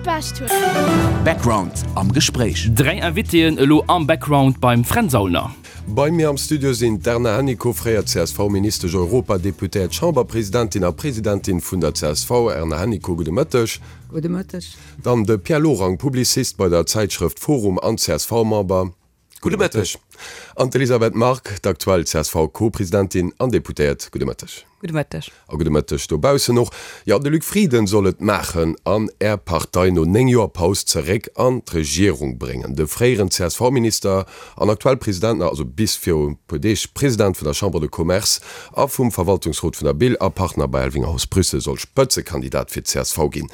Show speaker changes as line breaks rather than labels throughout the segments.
Bescht huet.
Background am Gespréich.
3 Invitéen elo am Background beim Fränz Aulner.
Bei mir am Studio sinn d'Erna Hennicot, fréier CSV-Ministesch, Europadeputéiert, Chamberpresidentin a Presidentin vun der csv. Erna Hennicot, gudde Mëtteg.
Gudde Mëtteg.
Dann de Pierre Lorang, Publicist bei der Zäitschrëft Forum an CSV-Member. Gudde Mëtteg. An d'Elisabeth Margue, d'aktuell CSV-Co-Presidentin an Deputéiert. Gudde Mëtteg.
Gudde Mëtteg.
A gudde Mëtteg dobaussen och. Jo, de Luc Frieden soll et maachen an Är Partei no 9 Joer Paus zeréck an d'Regierung bréngen. De fréieren CSV-Minister an aktuell President, also bis viru e puer Deeg President vun der Chambre de Commerce a vum Verwaltungsrot vun der BIL a Partner bei Elvinger-Haus Brüssel soll Spëtzekandidat fir d'CSV ginn.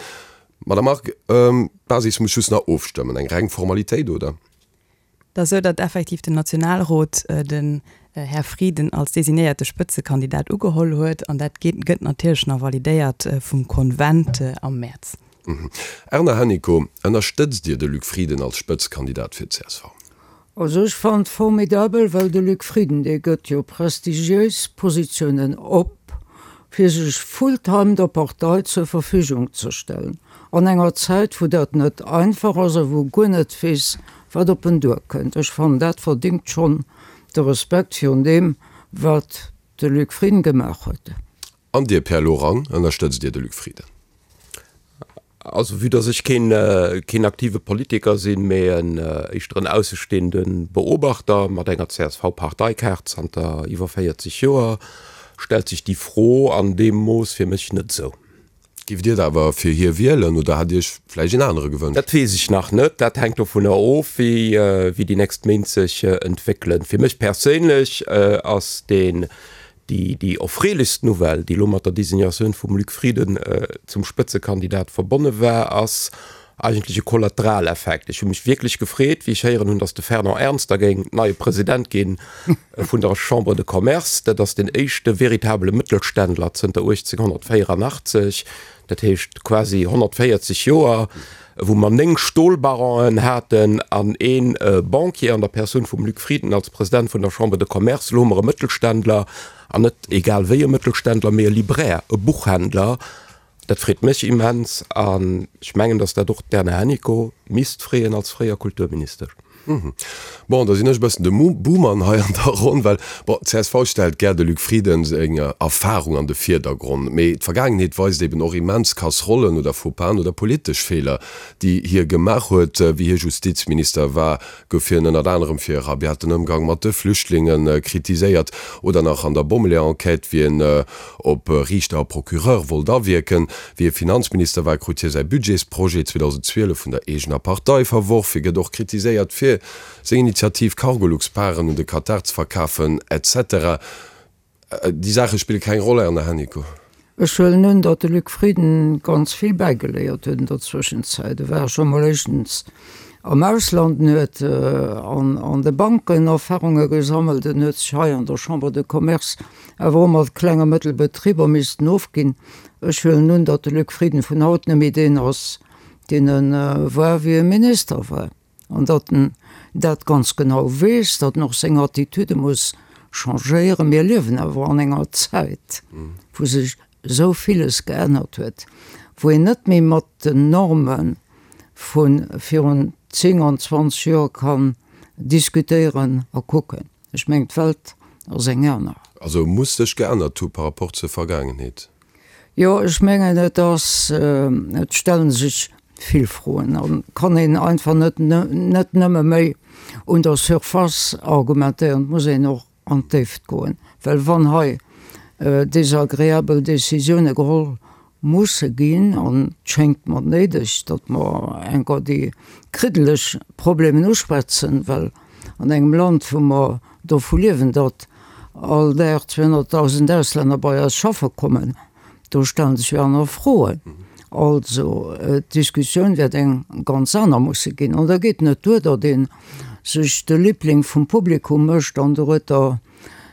Madame Margue, d'Basis muss just nach ofstëmmen. Eng reng Formalitéit, oder?
Et ass esou, datt effektiv den Nationalrot den Här Frieden als designéierte Spëtzekandidat ugeholl huet an dat gëtt natierlech nach validéiert vum Konvent am Mäerz.
Erna Hennicot, ënnerstëtzt Dir de Luc Frieden als Spëtzekandidat fir d'CSV?
Also ech fannen et formidabel, well de Luc Frieden, dee gëtt jo prestigiéis Positiounen op, fir sech full-time der Partei zur Verfügung ze stellen, an enger Zäit wou dat net einfach ass a wou guer net weess, wat op en duerkënnt. Ech fannen, dat verdingt schonn de Respekt virun deem, wat de Luc Frieden gemaach huet.
An Dir, Pierre Lorang, ënnerstëtzt Dir de Luc Frieden?
Also vue dass ech keen, keen aktive Politiker sinn, mee en éischter en aussestehende Beobachter mat enger CSV-Parteikaart zanter iwwer 40 Joer, stellt sech déi Fro an deem Mooss fir mech net esou.
Giff Dir da awer fir hie wielen oder hat Dir Iech vläicht een anere gewënscht?
Dat weess ech nach net. Dat hänkt dovunner of, wéi wéi déi nächst Méint sech entwéckelen. Fir mech perséinlech ass deen, déi déi erfreelechst Nouvelle, déi elo mat der Designatioun vum Luc Frieden zum Spëtzekandidat verbonne war, ass eigentlech e Kollateraleffekt. Ech hu mech wierklech gefreet, wéi ech héieren hunn, datt de Fernand Ernst da géing neie President gi vun der Chambre de Commerce. Dat ass den éischte veritabele Mëttelständler zënter 1884, dat heescht quasi 140 Joer, wou mer 9 Stolbaronen haten an ee Banquier an der Persoun vum Luc Frieden als President vun der Chambre de Commerce. Elo hu mer e Mëttelständler, an net egal wéi e Mëttelständler, mee e Libraire, e Buchhändler. Dat freet mech immens an ech mengen, datt dat och d'Erna Hennicot misst freeën als fréier Kulturministesch.
Bon, da sinn ech e bëssen de Buhmann hei an der Ronn, well, bon, csv stellt gär de Luc Frieden seng Erfahrung an de Virdergronn, mee d'Vergaangenheet weist eben och immens Kasserollen oder Faux-pas'en oder politesch Feeler, déi hie gemaach huet. Wéi hie Justizminister war, gouf hien ënnert anerem fir e rabiaten Ëmgang mat de Flüchtlinge kritiséiert oder nach an der Bommeleeër-Enquête, wéi en op Riichter a Procureur wollt awierken. Wéi e Finanzminister war, krut hie säi Budgetsprojet 2012 vun der eegener Partei verworf. Hie gëtt och kritiséiert fir seng Initiativ, Cargolux-Paren un de Katar ze verkafen, etc. Déi Saache spille keng Roll, Erna Hennicot.
Ech huelen un, datt de Luc Frieden ganz vill bäigeléiert huet an der Zwëschenzäit. E war scho mol éischtens am Ausland, en huet an de Banken Erfarunge gesammelt, en huet sech hei an der Chambre de Commerce awer och mat Kleng a Mëttelbetriber missten ofginn. Ech huelen un, datt de Luc Frieden vun haut net méi deen ass, deen e war, wéi e Minister war, an datt en dat ganz genau weess, datt en och seng Attitüde muss changéieren. Mir liewen awer an enger Zäit, wou sech esou villes geännert huet, wou een net méi mat den Norme vu virun 10 an 20 Joer kann diskutéieren a kucken. Ech mengen, d'Welt ass eng aner.
Also muss sech geännert hu par rapport zur Vergaangenheet?
Jo, ech mengen, et ass, et stelle sech vill Froen an kann een einfach net, net nëmme méi un der Surface argumentéieren, et muss een och an d'Déift goen, well wann hei desagreabel Décisioune geholl musse ginn, an et schéngt mer néideg, datt mer enker déi kriddeleg Problemen uschwätzen, well an engem Land, wou mer dovu liewen, datt all Dag 200.000 Auslänner bei eis schaffe kommen, do stellen sech jo aner Froen. Also d'Diskussioun wäert eng ganz aner musse ginn. An da geet net duer, datt ee sech de Liebling vum Publikum mécht an dorueter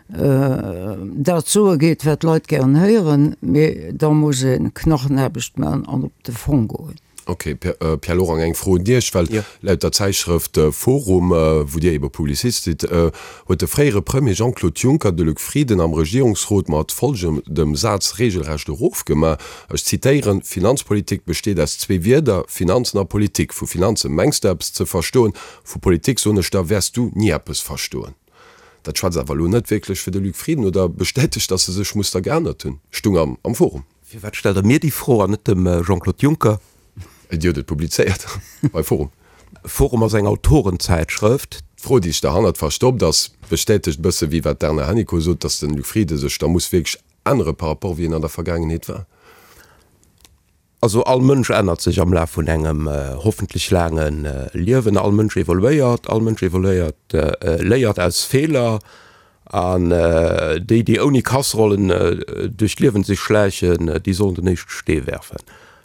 dat soe geet, wat d'Leit gären héieren, mee da muss ee Knachenaarbecht maachen an op de Fong goen.
Ok, Pierre Lorang, eng Fro un Iech, well laut der Zäitschrëft Forum, wou Dir ebe Publicist sidd, huet de fréiere Premier Jean-Claude Juncker de Luc Frieden am Regierungsrot mat folgendem Saz reegelrecht erofgemaach, ech zitéieren, Finanzpolitik besteet aus zwee Wierder, Finanzen a Politik. Vu Finanze mengs de eppes ze verstoen, vu Politik, soen ech der, wäers du ni eppes verstoen. Dat schwätzt awer elo net wierklech fir de Luc Frieden oder bestätegt, datt e sech muss da geännert hunn, stung am Forum.
Firwat stellt Der mir déi Fro an net dem Jean-Claude Juncker?
Dir hutt et publizéiert bei Forum.
Forum ass eng Autorenzäitschrëft.
D'Fro, déi sech derhannert verstoppt, ass, bestätegt e bësse wéi wat d'Erna Hennicot sot, datt de Luc Frieden sech da muss wierklech ännere par rapport wéi en an der Vergaangenheet war.
Also all Mënsch ännert sech am Laf vun engem hoffentlech laange Liewen. All Mënsch evoluéiert, all Mënsch evoluéiert, léiert aus Feeler. An déi, déi ouni Kasserollen duerch d'Liewen sech schläichen, déi sollen den éischte Stee werfen.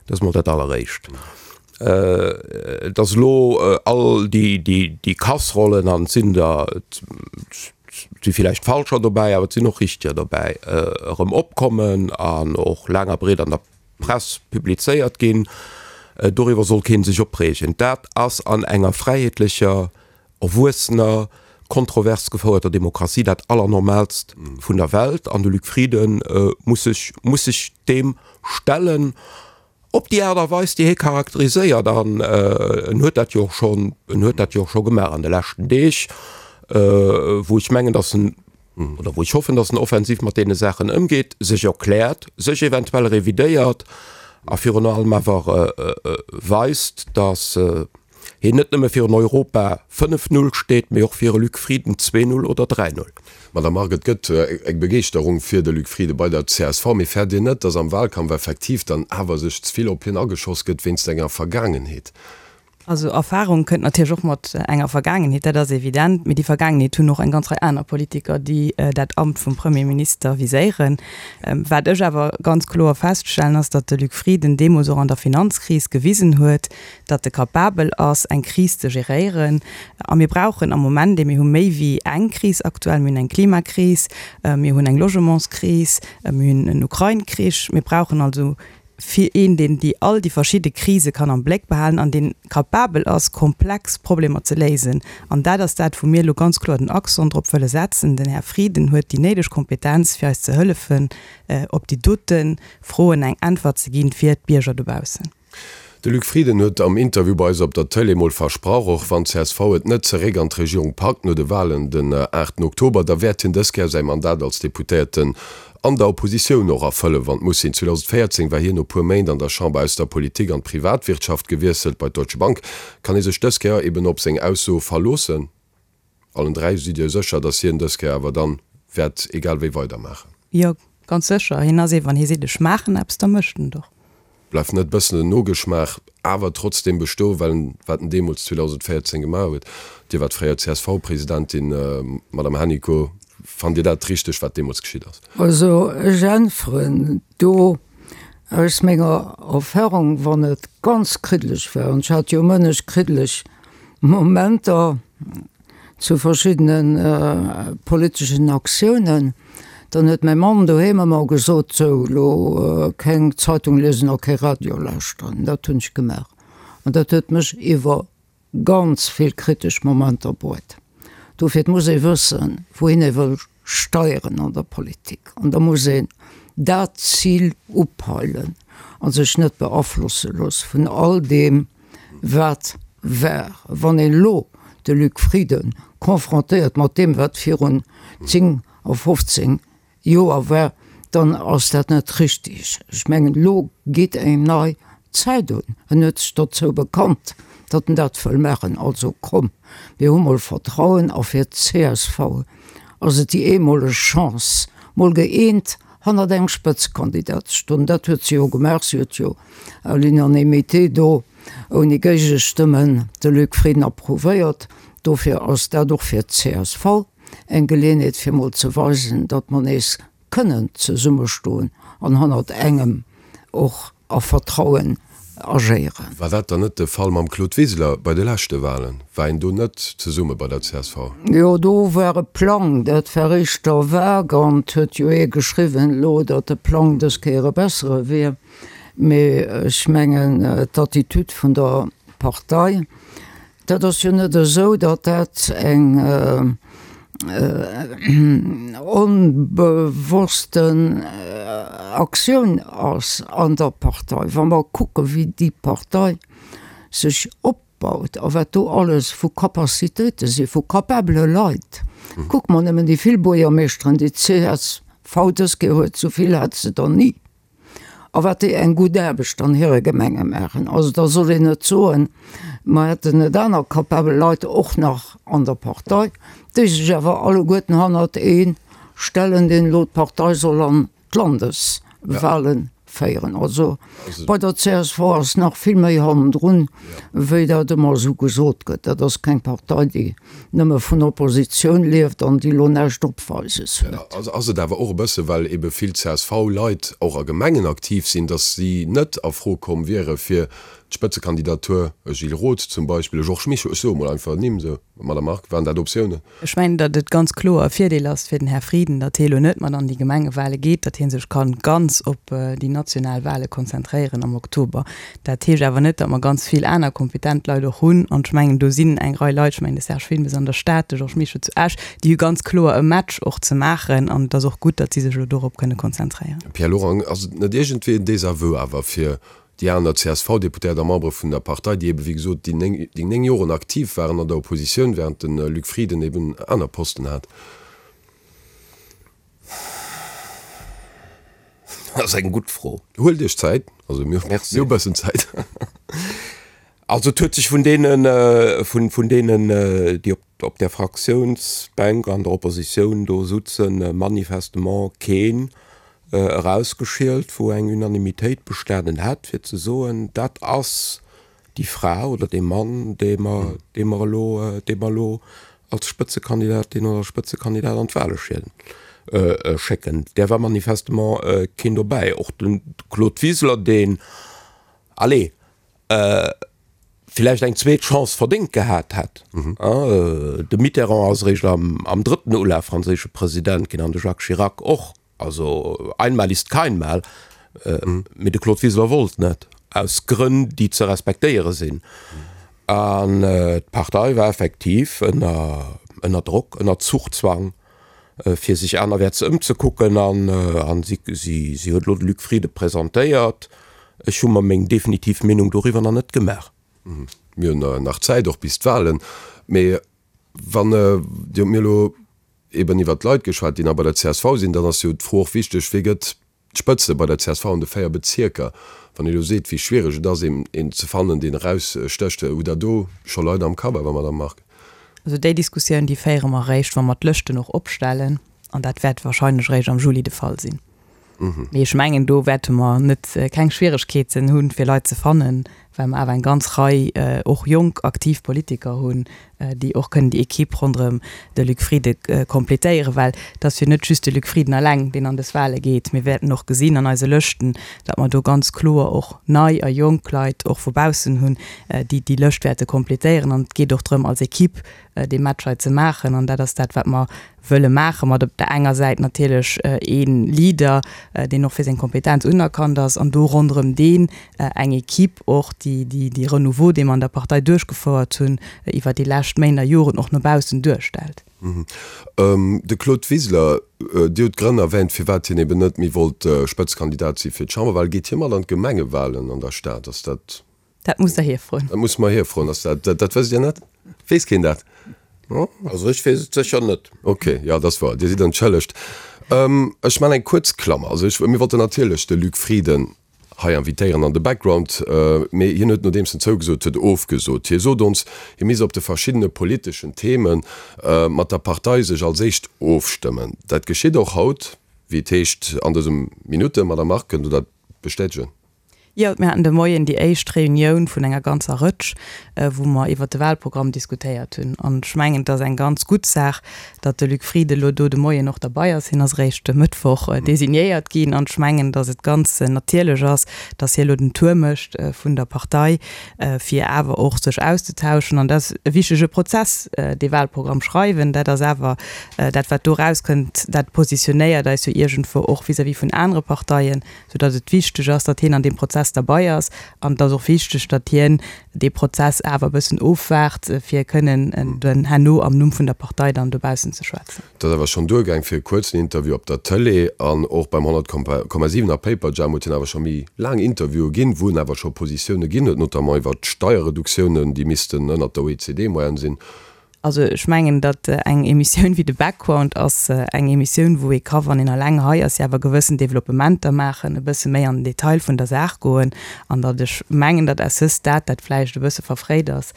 Dat ass mol dat Alleréischt. Dass elo all déi Kasserollen, an et sinn der, et si villäicht falscher dobäi, awer et sinn och richteger dobäi, erëm opkommen an och laang a breet an der Press publizéiert ginn, doriwwer soll kee sech opreegen. Dat ass an enger fräiheetlecher, erwuessener, kontrovers gefouerter Demokratie dat Allernormaalst vun der Welt. An de Luc Frieden muss sech, muss sech deem stellen op déi Aart a Weis, déi hie charakteriséiert. An en huet dat jo och schonn, en huet dat jo och scho gemaach an de leschten Deeg, wou ech mengen, datt en, oder wou ech hoffen, datt en offensiv mat deene Saachen ëmgeet, sech erkläert, sech eventuell revidéiert a virun allem awer weist, datt hien net nëmme fir en Europa 5, 0 steet, mee och fir e Luc Frieden 2, 0 oder 3, 0.
Madame Margue, et gëtt eng Begeeschterung fir de Luc Frieden bei der csv, mee fäert Dir net, datt am Wahlkampf effektiv dann awer sech ze vill op hien ageschoss gëtt wéinst enger Vergaangenheet?
Also Erfahrung kënnt natierlech och mat enger Vergaangenheet, dat ass evident. Mee déi Vergaangenheet hunn och eng ganz Rei aner Politiker, déi dat Amt vum Premierminister viséieren. Wat ech awer ganz kloer feststellen, ass, datt de Luc Frieden deemools och an der Finanzkris gewisen huet, datt e capabel ass, eng Kris ze geréieren. A mir brauchen am Moment, mir hu méi wéi eng Kris aktuell, mir hunn eng Klimakris, mir hunn eng Logementskris, mir hunn en Ukrain-Krich, mir brauchen also fir een, deen déi all déi verschidde Krise kann am Bléck behalen an deen capabel ass, komplex Problemer ze léisen. An dat ass dat, wou mir elo ganz kloer den Accent drop wëlle setzen. Den Här Frieden huet déi néideg Kompetenz, fir eis ze hëllefen, op déi dote Froen eng Äntwert ze ginn fir d'Bierger dobaussen.
De Luc Frieden huet am Interview bei eis op der Tëlee mol versprach, och wann csv et net zeréck an d'Regierung packt no de Walen den 8 Oktober, da wäert hien dës Kéier säi Mandat als Deputéierten an der Oppositioun och erfëllen, wann et muss sinn. 2014 war hien no puer Méint an der Chamber aus der Politik an d'Privatwirtschaft gewiesselt, bei d'Deutsche Bank. Kann ee sech dës Kéier eben op seng Ausso verloossen? Allen 3, sidd Dir sécher, datt hien dës Kéier awer dann wäert egal wéi weidermaachen?
Jo, ganz sécher. Hien ass ee, wann hie seet, ech maachen eppes, da mécht en et och.
Bleift net bëssen den Nogeschmaach awer trotzdem bestoen, well en, wat en deemools 2014 gemaach huet, Dir waart fréier CSV-Presidentin, Madame Hennicot, fannt Dir dat richteg, wat deemools geschitt ass?
Also ech äntweren do aus menger Erfahrung, wann et ganz kriddeleg war, an ech hat jo mënneg kriddeleg Momenter zu verschiddene politeschen Aktiounen, dann huet mäi Mann doheem ëmmer gesot, sou elo keng Zeitung liesen a kee Radio lauschteren. Dat hunn ech gemaach an dat huet mech iwwer ganz vill kritesch Momenter bruet. Dofir, et muss ee wëssen, wouhin ee wëll steieren an der Politik an da muss een dat Zil upeilen a sech net beaflosse loosse vun all deem, wat war. Wann een elo de Luc Frieden confrontéiert mat deem, wat virun 10 a 15 Joer war, dann ass dat net richtig. Ech mengen, elo geet eng nei Zäit un. En huet sech dozou bekannt, datt en dat wëll maachen. Also komm, mir hu mol Vertrauen. A fir d'CSV ass et déi eemoleg Chance, mol gëeent hannert engem Spëtzekandidat ze stoen. Dat huet se jo gemaach. Si huet jo à l'unanimité do ouni Géigestëmmen de Luc Frieden approuvéiert. Dofir ass dat och fir d'CSV eng Geleeënheet fir mol ze weisen, datt mer nees kënnen zesummestoen an hannert engem och a Vertrauen agéieren.
War dat dann net de Fall mam Claude Wiseler bei de leschte Wahlen? War een do net zesumme bei der csv?
Jo, do war e Plang, dat war éischter vague an et huet jo ee geschriwwen elo, datt de Plang dës Kéier e bessere wier. Mee ech mengen, d'Attitude vun der Partei, dat ass jo net esou, datt dat eng onbewossten Aktioun ass an der Partei. Wa mer kucke wéi déi Partei sech opbaut a wat do alles vu Capacitéite si vu capabele Leit, kucke mer nëmmen déi vill Buergermeeschteren, déi d'CSV dës Kéier huet, esou vill hat se der ni. A wat déi eng gutt Aarbecht an hire Gemenge maachen. Also da soll een net soen, mer hätten net aner capabel Leit och nach an der Partei, déi sech awer alleguerten hannert ee stellen, deen elo d'Partei soll an d'Landeswahlen féieren. Also bei der csv ass nach vill méi hannendrun, wéi dat ëmmer esou gesot gëtt. Dat ass keng Partei, déi nëmme vun Oppositioun lieft an déi elo näischt opweises huet.
Ass et awer och e bësse well ebe vill CSV-Leit och a Gemengen aktiv sinn, datt si net a Fro komm wiere fir d'Spëtzekandidatur, e Gilles Roth zum Beispill, e Georges Mischo, ech soe mol einfach Nimm esou, Madame Margue, waren dat Optiounen?
Ech mengen, datt et ganz kloer e Virdeel ass fir den Här Frieden, datt hie elo net mat an déi Gemengewale geet, datt hie sech kann ganz op déi national Wale konzentréieren am Oktober. Dat heescht awer net, datt mer ganz vill aner kompetent Leit och hunn. An ech mengen, do sinn eng Rei Leit, ech mengen de Serge Wilmes an der Stad, de Georges Mischo zu Esch, déi hu ganz kloer e Match och ze maachen. An et ass och gutt, datt si sech elo dorop kënne konzentréieren.
Pierre Lorang, Ass et net iergendwéi en Désaveu awer fir déi aner CSV-Deputéiert a Membere vun der Partei, déi ebe wéi gesot déi 9 Joren aktiv waren an der Oppositioun, während de Luc Frieden eben aner Posten hat?
Dat ass eng gutt Fro.
Huelt Iech Zäit, also mir hu bëssen Zäit.
Also et huet sech vun deenen, vun deenen, déi op där Fraktiounsbänk an der Oppositioun do sutzen, manifestement keen erausgeschielt, wou eng Unanimitéit bestanen hätt, fir ze soen, dat ass déi Fra oder dee Mann, dee mer, dee mer elo, dee mer elo als Spëtzekandidatin oder Spëtzekandidat an d'Wahle schécken. Där war manifestement keen dobäi. Och de Claude Wiseler, deen, allez, villäicht eng zweet Chance verdéngt gehat hätt. De Mitterrand ass eréischt am drëtten Ulaf franséische President ginn an de Jacques Chirac och. Also einmal ist kein Mal. Mee de Claude Wiseler wollt net, aus Grënn, déi ze respektéiere sinn. An d'Partei war effektiv ënner ënner Drock, ënner Zuchzwang, fir sech anerwäerts ëmzekucken. An si si huet elo de Luc Frieden presentéiert. Ech hu mer meng definitiv Meenung doriwwer nach net gemaach.
Mir hunn nach Zäit, och bis d'Wahlen. Mee wann Dir hutt mir elo eben iwwert d'Leit geschwat, déi nach bei der csv sinn, dann ass jo d'Fro och wichteg, Wie gëtt d'Spëtze bei der csv an de 4 Bezierker? Wann ee elo seet, wéi schwiereg et ass, een ze fannen, deen erausstécht, hutt Der do scho Leit am Kapp awer, Madamm Margue?
Also déi Diskussioun, déi féiere mer eréischt, wa mer d'Lëschten och opstellen, an dat wäert wahrscheinlech eréischt am Juli de Fall sinn. Mee ech mengen, do wäerte mer net keng Schwieregkeeten hunn, fir Leit ze fannen, well mer awer eng ganz Rei och jonk, aktiv Politiker hunn, déi och kënnen déi Equipe ronderëm de Luc Frieden completéieren. Well et ass jo net just de Luc Frieden eleng, deen an dës Wahle geet. Mir wäerten och gesinn an eise Lëschten, datt mer do ganz kloer och nei a jonk Leit och vu baussen hunn, déi déi Lëscht wäerte completéieren. An et geet och drëm, als Equipe dee Match hei ze maachen. An dat ass dat, wat mer wëlle maachen, mat op der enger Säit natierlech ee Leader, deen och fir seng Kompetenz unerkannt ass, an do ronderëm deen eng Equipe och, déi dee Renouveau, dee mer an der Partei duerchgefouert hunn iwwer déi lescht Méint a Joren, och no baussen duerstellt.
De Claude Wiseler, Dir hutt d'Grënn erwähnt, firwat hien eben net méi wollt Spëtzekandidat si fir d'Chamberwahlen. Geet hie mat an d'Gemengewahlen an der Stad? Ass dat
Dat musst Der hie froen.
Dat musse mer hie froen. Ass dat, dat wësst Dir net? Weess keen dat?
Also ech weess et sécher net.
Ok, jo, dat ass wouer. Dir sidd entschëllegt. Ech maachen eng kuerz Klammer. Also ech, mir wollten natierlech de Luc Frieden hei invitéieren an de Background, mee hien huet, nodeems en zougesot huet, ofgesot. Hie sot ons, hie misst op de verschiddene politeschen Theme mat der Partei sech als éischt ofstëmmen. Dat geschitt och haut, wéi et heescht an dësem Minutten. Madame Margue, kënnt Der dat bestätegen?
Jo, mir haten de Moien déi éischt Reunioun vun enger ganzer Rëtsch, wou mer iwwert de Wahlprogramm diskutéiert hunn. An ech mengen, et ass eng ganz gutt Saach, datt de Luc Frieden elo do de Moien och derbei ass. Hien ass eréischt e Mëttwoch designéiert ginn. An ech mengen, datt et ganz natierlech ass, datt hie elo den Tour mécht vun der Partei, fir awer och sech auszetauschen. An dat ass e wichtege Prozess, dee Wahlprogramm schreiwen. Dat ass awer dat, wat do erauskënnt, dat positionéiert eis jo iergendwou och vis-à-vis vun anere Parteien. Soudatt et wichteg ass, datt hien an deem Prozess. Prozess derbei ass. An et ass och wichteg, datt hien dee Prozess awer e bëssen ofwaart, fir kënnen dann herno am Numm vun der Partei dann dobaussen ze schwätzen.
Et ass awer schonn duergaang fir e kuerzen Interview op der Tëlee an och beim 100,7 a Paperjam huet hien awer scho méi laang Interviewe ginn, wou en awer scho Positioune ginn huet, notamment iwwert d'Steierreduktiounen, déi missten ënnert der OECD-Moyenne sinn.
Also ech mengen, datt eng Emissioun wéi de Background ass eng Emissioun, wou ee ka, wann een eleng hei ass, jo awer gewëssen Developpementer maachen, e bësse méi an den Detail vun der Saach goen. An datt ech mengen, datt à ce stade dat vläicht e bësse verfréit ass,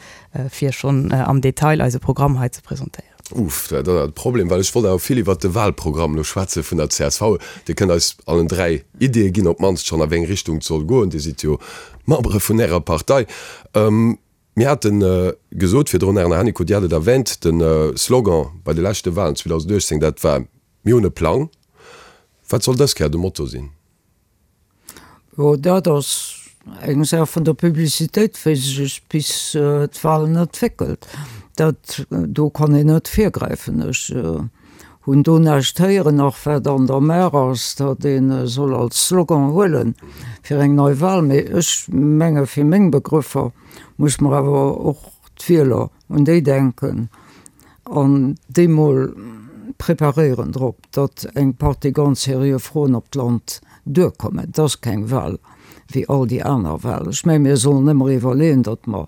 fir schonn am Detail eise Programm hei ze presentéieren.
Uff, dat ass awer de Problem, well ech wollt awer vill iwwert de Wahlprogramm elo schwätze vun der csv. Dir kënnt eis allen 3 Ideeë ginn, op d'mannst schonn a wéi eng Richtung et soll goen. Dir sidd jo Membere vun Ärer Partei. Mir hate gesot virdrun, Erna Hennicot, Dir hat et erwähnt, de Slogan bei de leschte Wahlen 2018, dat war Mir hunn e Plang. Wat soll dës Kéier de Motto sinn?
Jo, dat ass eng Saach vun der Publicitéit, wéi sech bis d'Wahlen entwéckelt. Dat do kann een net virgräifen. Ech hunn do näischt héieren, nach wat an der Maach ass, datt ee soll als Slogan huele fir eng nei Wahl. Mee ech menge fir meng Begrëffer muss mer awer och d'Wieler, un déi denken an déi mol preparéieren drop, datt eng Partie ganz seriö Froen op d'Land duerkommen. Et ass keng Wahl wéi all déi aner Wahlen. Ech menge mir sollen ëmmer iwwerleeën, datt mer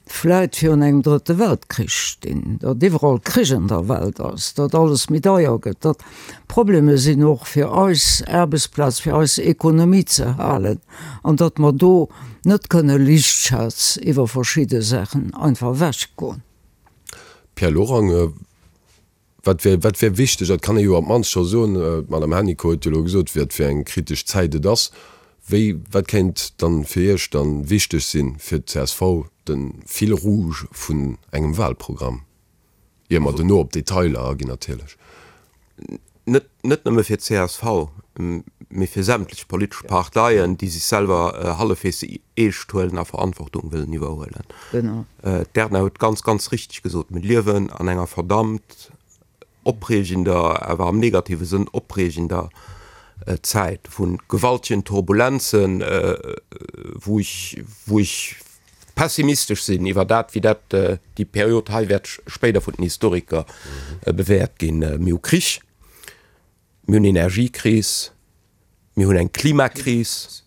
vläit virun engem drëtte Weltkrich stinn, datt iwwerall Krich an der Welt ass, datt alles méi deier gëtt, datt Probleme sinn och fir eis Aarbechtsplaz, fir eis Ekonomie ze halen an datt mer do net kënne liichtschaz iwwer verschidde Saachen einfach ewechgoen.
Pierre Lorang, Wat wär, wat wär wichteg, dat kann ee jo op d'mannst scho soen, d'Madame Hennicot huet jo elo gesot, wat fir eng kritesch Zäit et ass. Wéi, wat kéint dann fir Iech dann wichteg sinn, fir d'CSV, de Fil rouge vun engem Wahlprogramm, ier mer dono op d'Detailer aginn natierlech?
Net, net nëmme fir d'CSV, mee fir sämtlech politesch Parteien, déi sech selwer hallefwegs eescht huelen a Verantwortung wëllen iwwerhuelen.
Genau.
D'Erna huet ganz, ganz richteg gesot, Mir liewen an enger verdammt opreegender, awer am negative Sënn opreegender Zäit vu gewaltegen Turbulenzen, wou ech, wou ech pessimistesch sinn iwwer dat, wéi dat déi Period hei wäert spéider vun den Historiker bewäert ginn. Mir hu Krich, mir hunn Energiekris, mir hunn eng Klimakris,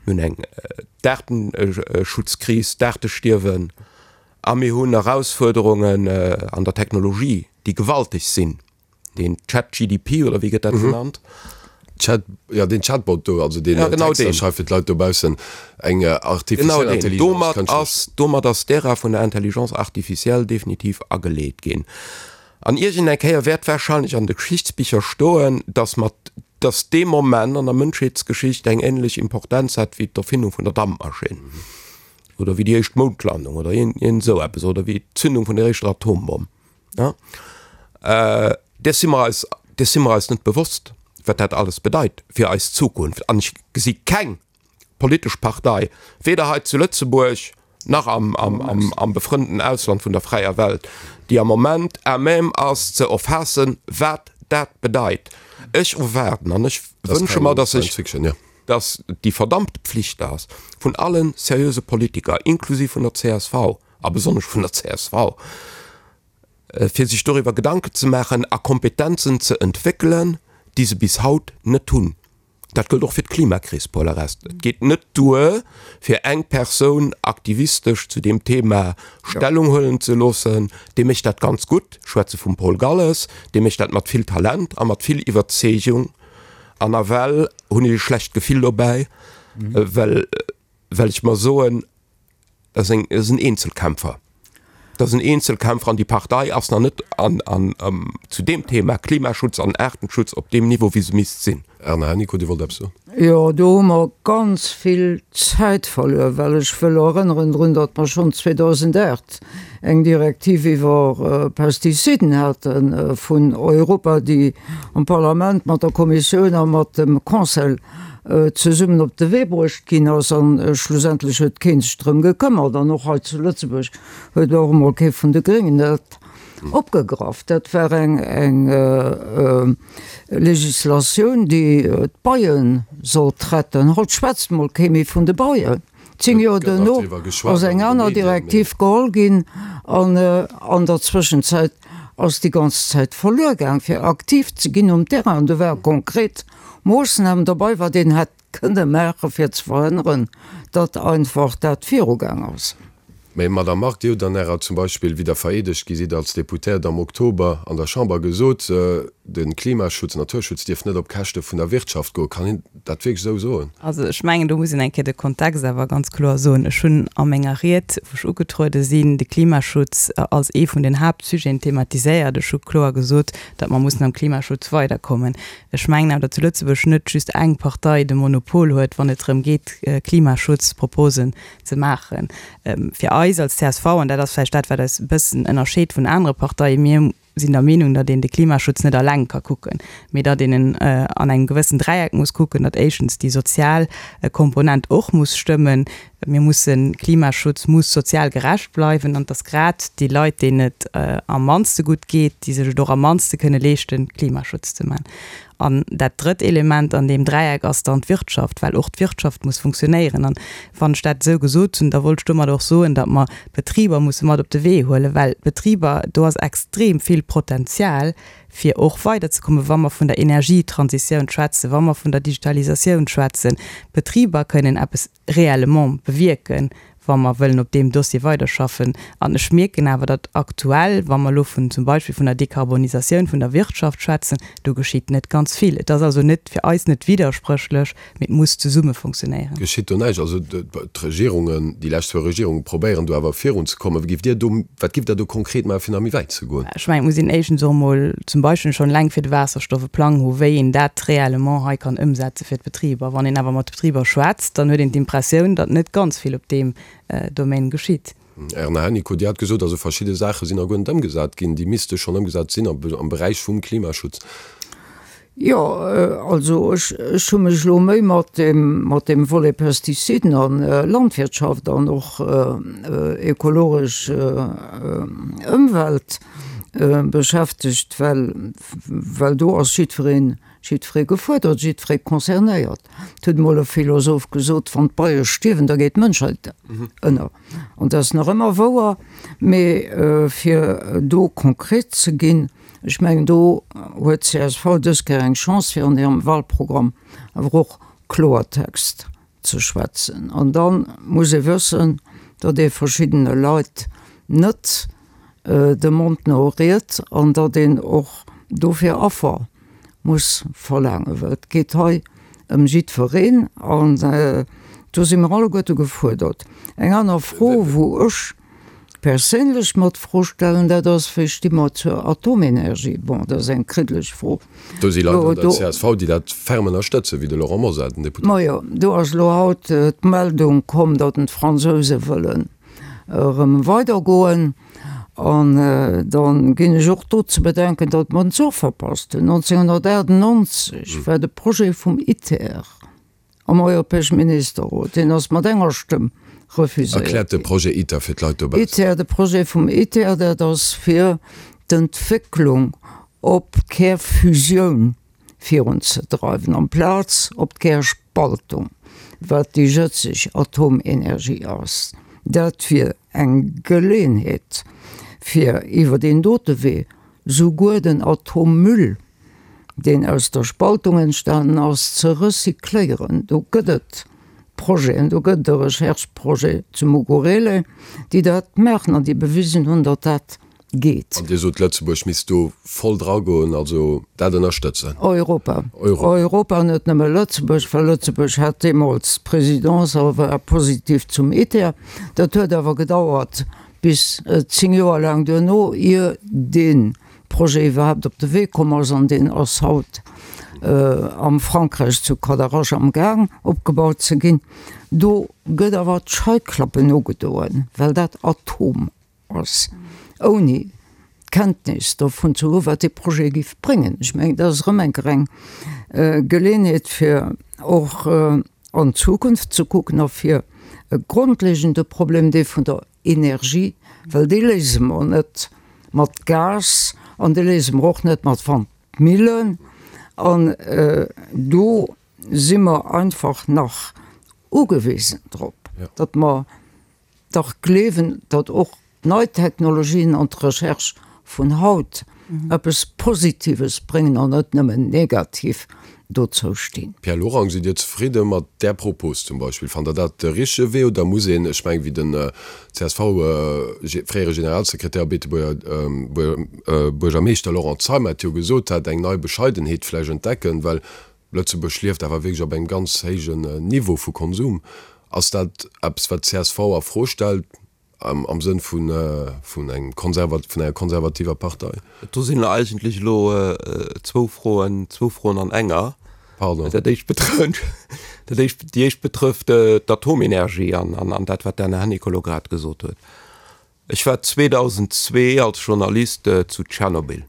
mir hunn eng d'Aartenschutzkris, d'Aartestierwen a mir hunn Erausfuerderungen an der Technologie, déi gewalteg sinn. Den ChatGDP oder wéi gëtt dat genannt?
Chat, ja den Chatbot do, also deen ja, genau Texter schreift fir d'Leit dobaussen, eng artificiell
Intelligenz. Domat ass, domat ass d'Ära vun der Intelligence artificielle definitiv ageleet ginn. An iergend eng Kéier wäert wahrscheinlech an de Geschichtsbicher stoen, dass mat, dass dee Moment an der Mënschheetsgeschicht eng ähnlech Importenz hat wéi d'Erfindung vun der Dampmaschinn oder wéi déi éischt Moundlandung oder iergend esou eppes oder wéi d'Zündung vun der éischter Atombomm. Ja. Äh, däers si mer eis, däers si mer eis net bewosst, wat dat alles bedeit fir eis Zukunft. An ech gesi keng politesch Partei, weder hei zu Lëtzebuerg nach am, am, am, am befrënnten Ausland vun der fräier Welt, déi am Moment à même ass ze erfaassen, wat dat bedeit. Ech erwaarden an ech wënsche mer, dass sech, dass déi verdammte Pflicht ass vun allen seriöse Politiker, inklusiv vun der csv, a besonnesch vun der csv, fir sech doriwwer Gedanken ze maachen a Kompetenzen ze entwéckelen, déi se bis haut net hunn. Dat gëllt och fir d'Klimakris, Paul Arest. Et geet net duer, fir eng Persoun aktivistesch zu deem Thema Stellung huelen ze loossen. Dee mécht dat ganz gutt, ech schwätze vum Paul Galles, dee mécht dat mat vill Talent a mat vill Iwwerzeegung. An nawell hunn ech e schlecht Gefill dobäi, well, well ech mer soen, Dat ass eng, dat ass en Eenzelkämpfer. Dat ass en Eenzelkämpfer an déi Partei ass nach net an, an, zu deem Thema Klimaschutz an Aartenschutz op deem Niveau, wéi se misst sinn.
Erna Hennicot, Dir wollt eppes soen?
Jo, do hu mer ganz vill Zäit verluer, well ech wëll erënneren drun, datt mer schonn 2008 eng Direktiv iwwer Pestiziden hate vun Europa, déi am Parlament mat der Kommissioun a mat dem Conseil zesummen op de Wee bruecht ginn ass an schlussendlech huet kee sech drëm gekëmmert an och hei zu Lëtzebuerg huet och emol kee vun de Gréngen dat. Opgegraff. Dat war eng eng Legislatioun, déi d'Beie sollt retten. Haut schwätzt mol kee méi vun de Beien. 10 Joer duerno ass eng aner Direktiv geholl ginn an an der Zwëschenzäit ass déi ganz Zäit verluer gaang, fir aktiv ze ginn um Terrain. An do ware konkret Moossnamen dobei, wat een hätt kënne maachen, fir ze verhënneren, datt einfach dat virugaang ass.
Mä Madame Margue, Dir hutt an Ärer zum Beispill, wéi Der vereedegt gi sidd als Deputéiert am Oktober an der Chamber gesot, de Klimaschutz, Naturschutz dierf net op Käschte vun der Wirtschaft goen. Kann een dat wierklech esou soen?
Also ech mengen, do muss een eng Kéier de Kontext awer ganz kloer soen. Ech hunn a menger Ried, wou ech ugetruede sinn, de Klimaschutz als ee vun den Haaptsujeten thematiséiert. Ech hu kloer gesot, datt mer mussen am Klimaschutz weiderkommen. Ech mengen awer, datt zu Lëtzebuerg net just eng Partei de Monopol huet, wann et drëm geet, Klimaschutzproposen ze maachen. Fir eis als csv, an dat ass vläicht dat, wat eis e bëssen ënnerscheet vun anere Parteien, mir sinn der Meenung, datt een de Klimaschutz net alleng ka kucken, mee datt een en an engem gewëssen Dräieck muss kucken, datt éischtens déi sozial Komponent och muss stëmmen, Mir mussen, Klimaschutz muss sozial gerecht bleiwen an et ass grad déi Leit, deenen et am mannste gutt geet, déi sech et och am mannste kënne leeschten, Klimaschutz ze man. An dat drëtt Element an deem Dräieck ass dann d'Wirtschaft, well och d'Wirtschaft muss funktionéieren. An wann ech dat esou gesot hunn, da wollt ech domat och soen, datt mer d'Betriber musse mat op de Wee huelen, well d'Betriber, do ass extrem vill Potenzial, fir och weiderzekommen, wa mer vun der Energietransitioun schwätzen, wa mer vun der Digitalisatioun schwätzen. D'Betriber kënnen eppes réellement bewierken, wa mer wëllen op deem Dossier weiderschaffen. An ech mierken awer, datt aktuell, wa mer elo vun zum Beispill vun der Dekarbonisatioun vun der Wirtschaft schwätzen, do geschitt net ganz vill. Et ass also net, fir eis net widderspréchlech, mee et muss zesumme funktionéieren.
Geschitt do näischt? Also d'Regierungen, déi lescht zwou Regierunge probéieren do awer virunzekommen. Giff Dir do, wat giff Der do konkret maachen, fir nach méi wäit ze goen?
Ech mengen, et muss een éischtens och emol zum Beispill schonn eleng fir de Waasserstoff e Plang hu wéi een dat réellement hei kann ëmsetze fir d'Betriber. Wann een awer mat de Betriber schwätzt, dann huet een d'Impressioun, datt net ganz vill op deem Domaine geschitt.
Erna Hennicot, Dir hat gesot, also verschidde Saache sinn nach guer net ëmgesat ginn, déi misste schonn ëmgesat sinn am Beräich vum Klimaschutz.
Jo, also ech, ech hu mech elo méi mat deem, mat deem Volet Pestiziden an Landwirtschaft an och ökologesch Ëmwelt beschäftegt, well, well do ass jiddwereen, jiddweree gefuerdert, jiddweree concernéiert. Et huet emol e Philosoph gesot, Wann d'Beie stierwen, da geet d'Mënschheit ënner. An dat ass nach ëmmer wouer. Mee fir do konkret ze ginn, Ech mengen, do huet csv dës Kéier eng Chance, fir an hirem Wahlprogramm awer och Kloertext ze schwätzen. An da muss ee wëssen, datt ee verschiddene Leit net de Mond no riet an datt een och dofir Affer muss verlaangen, well et geet hei ëm jiddwereen an do si mer alleguerte gefuerdert. Eng aner Fro, wou ech perséinlech mer d'Fro stellen, dat ass, Wéi sti mer zur Atomenergie? Bon, dat ass eng kriddeleg Fro.
Do si Leit an der csv, déi dat ferm ënnerstëtzen, wéi de Laurent Mosar, den Deputéierten.
Majo, do ass elo haut d'Meldung komm, datt en d'Fransouse wëllen erëm weidergoen. An da ginn ech och do ze bedenken, datt mer den Zuch verpasst hunn. 1998 war de Projet vum ITER Am Europäesche Ministerrot, deen ass mat enger Stëmm refuséiert
ginn. Erkläert de Projet ITER fir d'Leit dobaussen.
ITER, de Projet vum ITER, dat ass fir d'Entwécklung op d'Kärfusioun virunzedreiwen, amplaz op d'Kärspaltung, wat déi jëtzeg Atomenergie ass. Dat wier eng Geleeënheet, fir iwwer deen dote Wee souguer den Atommüll, deen aus der Spaltung entstanen ass, ze recycléieren. Do gëtt et Projeten, do gëtt et e Recherche-Projet zu Mugurele, déi dat maachen an déi bewisen hunn, datt dat geet.
An Dir sot, Lëtzebuerg misst do voll dragoen, also dat ënnerstëtzen.
Europa. Europa, net nëmme Lëtzebuerg, well Lëtzebuerg hat deemools d'Presidence a war positiv zum ITER. Dat huet awer gedauert bis 10 Joer laang duerno, ier dee Projet iwwerhaapt op de Wee komm ass an deen ass haut am Frankräich zu Cadarache am Gaang opgebaut ze ginn. Do gëtt awer d'Scheiklappen ugedoen, well dat Atom ass, ouni Kenntnis dovun ze hu wat dee Projet géif bréngen. Ech mengen, dat ass erëm eng Kéier eng Geleeënheet fir och an d'Zukunft ze kucken a fir e grondlegende Problem, dee vun der Energie, well dee léise mer net. mat Gas an dee léise mer och net mat Wandmillen. An do si mer einfach nach ugewisen drop, datt mer dach gleewen, datt och nei Technologien an d'Recherche vun haut eppes Positives bréngen an net nëmmen negativ dozou stinn.
Pierre Lorang, Sidd Dir zefridde mat där Propos zum Beispill? Fannt Der dat de richtege Wee oder muss een, ech mengen, wéi den csv-fréiere Generalsekretär a Beetebuerger Buergermeeschter Laurent Zeimet et jo gesot hat, eng nei Bescheidenheet vläicht entdecken, well Lëtzebuerg lieft awer wierklech op engem ganz héijen Niveau vu Konsum. Ass dat eppes, wat d'CSV a Fro stellt, am Sënn vun engem vun enger konservativer Partei?
Do sinn eigentlech elo zwou Froen, zwou Froen an enger.
Pardon.
Dat éischt betrëfft, dat éischt, déi éischt betrëfft d'Atomenergie an, an dat, wat d'Erna Hennicot elo grad gesot huet. Ech war 2002 als Journalist zu Tschernobyl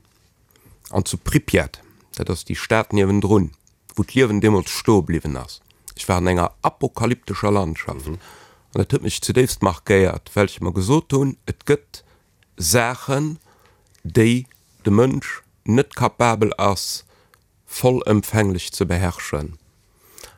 an zu Pripjat, dat ass déi Stad niewendrun, wou d'Liewen deemools stoe bliwwen ass. Ech war an enger apokalyptescher Landschaft an dat huet mech zudéifst markéiert, well ech mer gesot hunn, et gëtt Saachen, déi de Mënsch net kapabel ass vollëmfänglech ze beherrschen.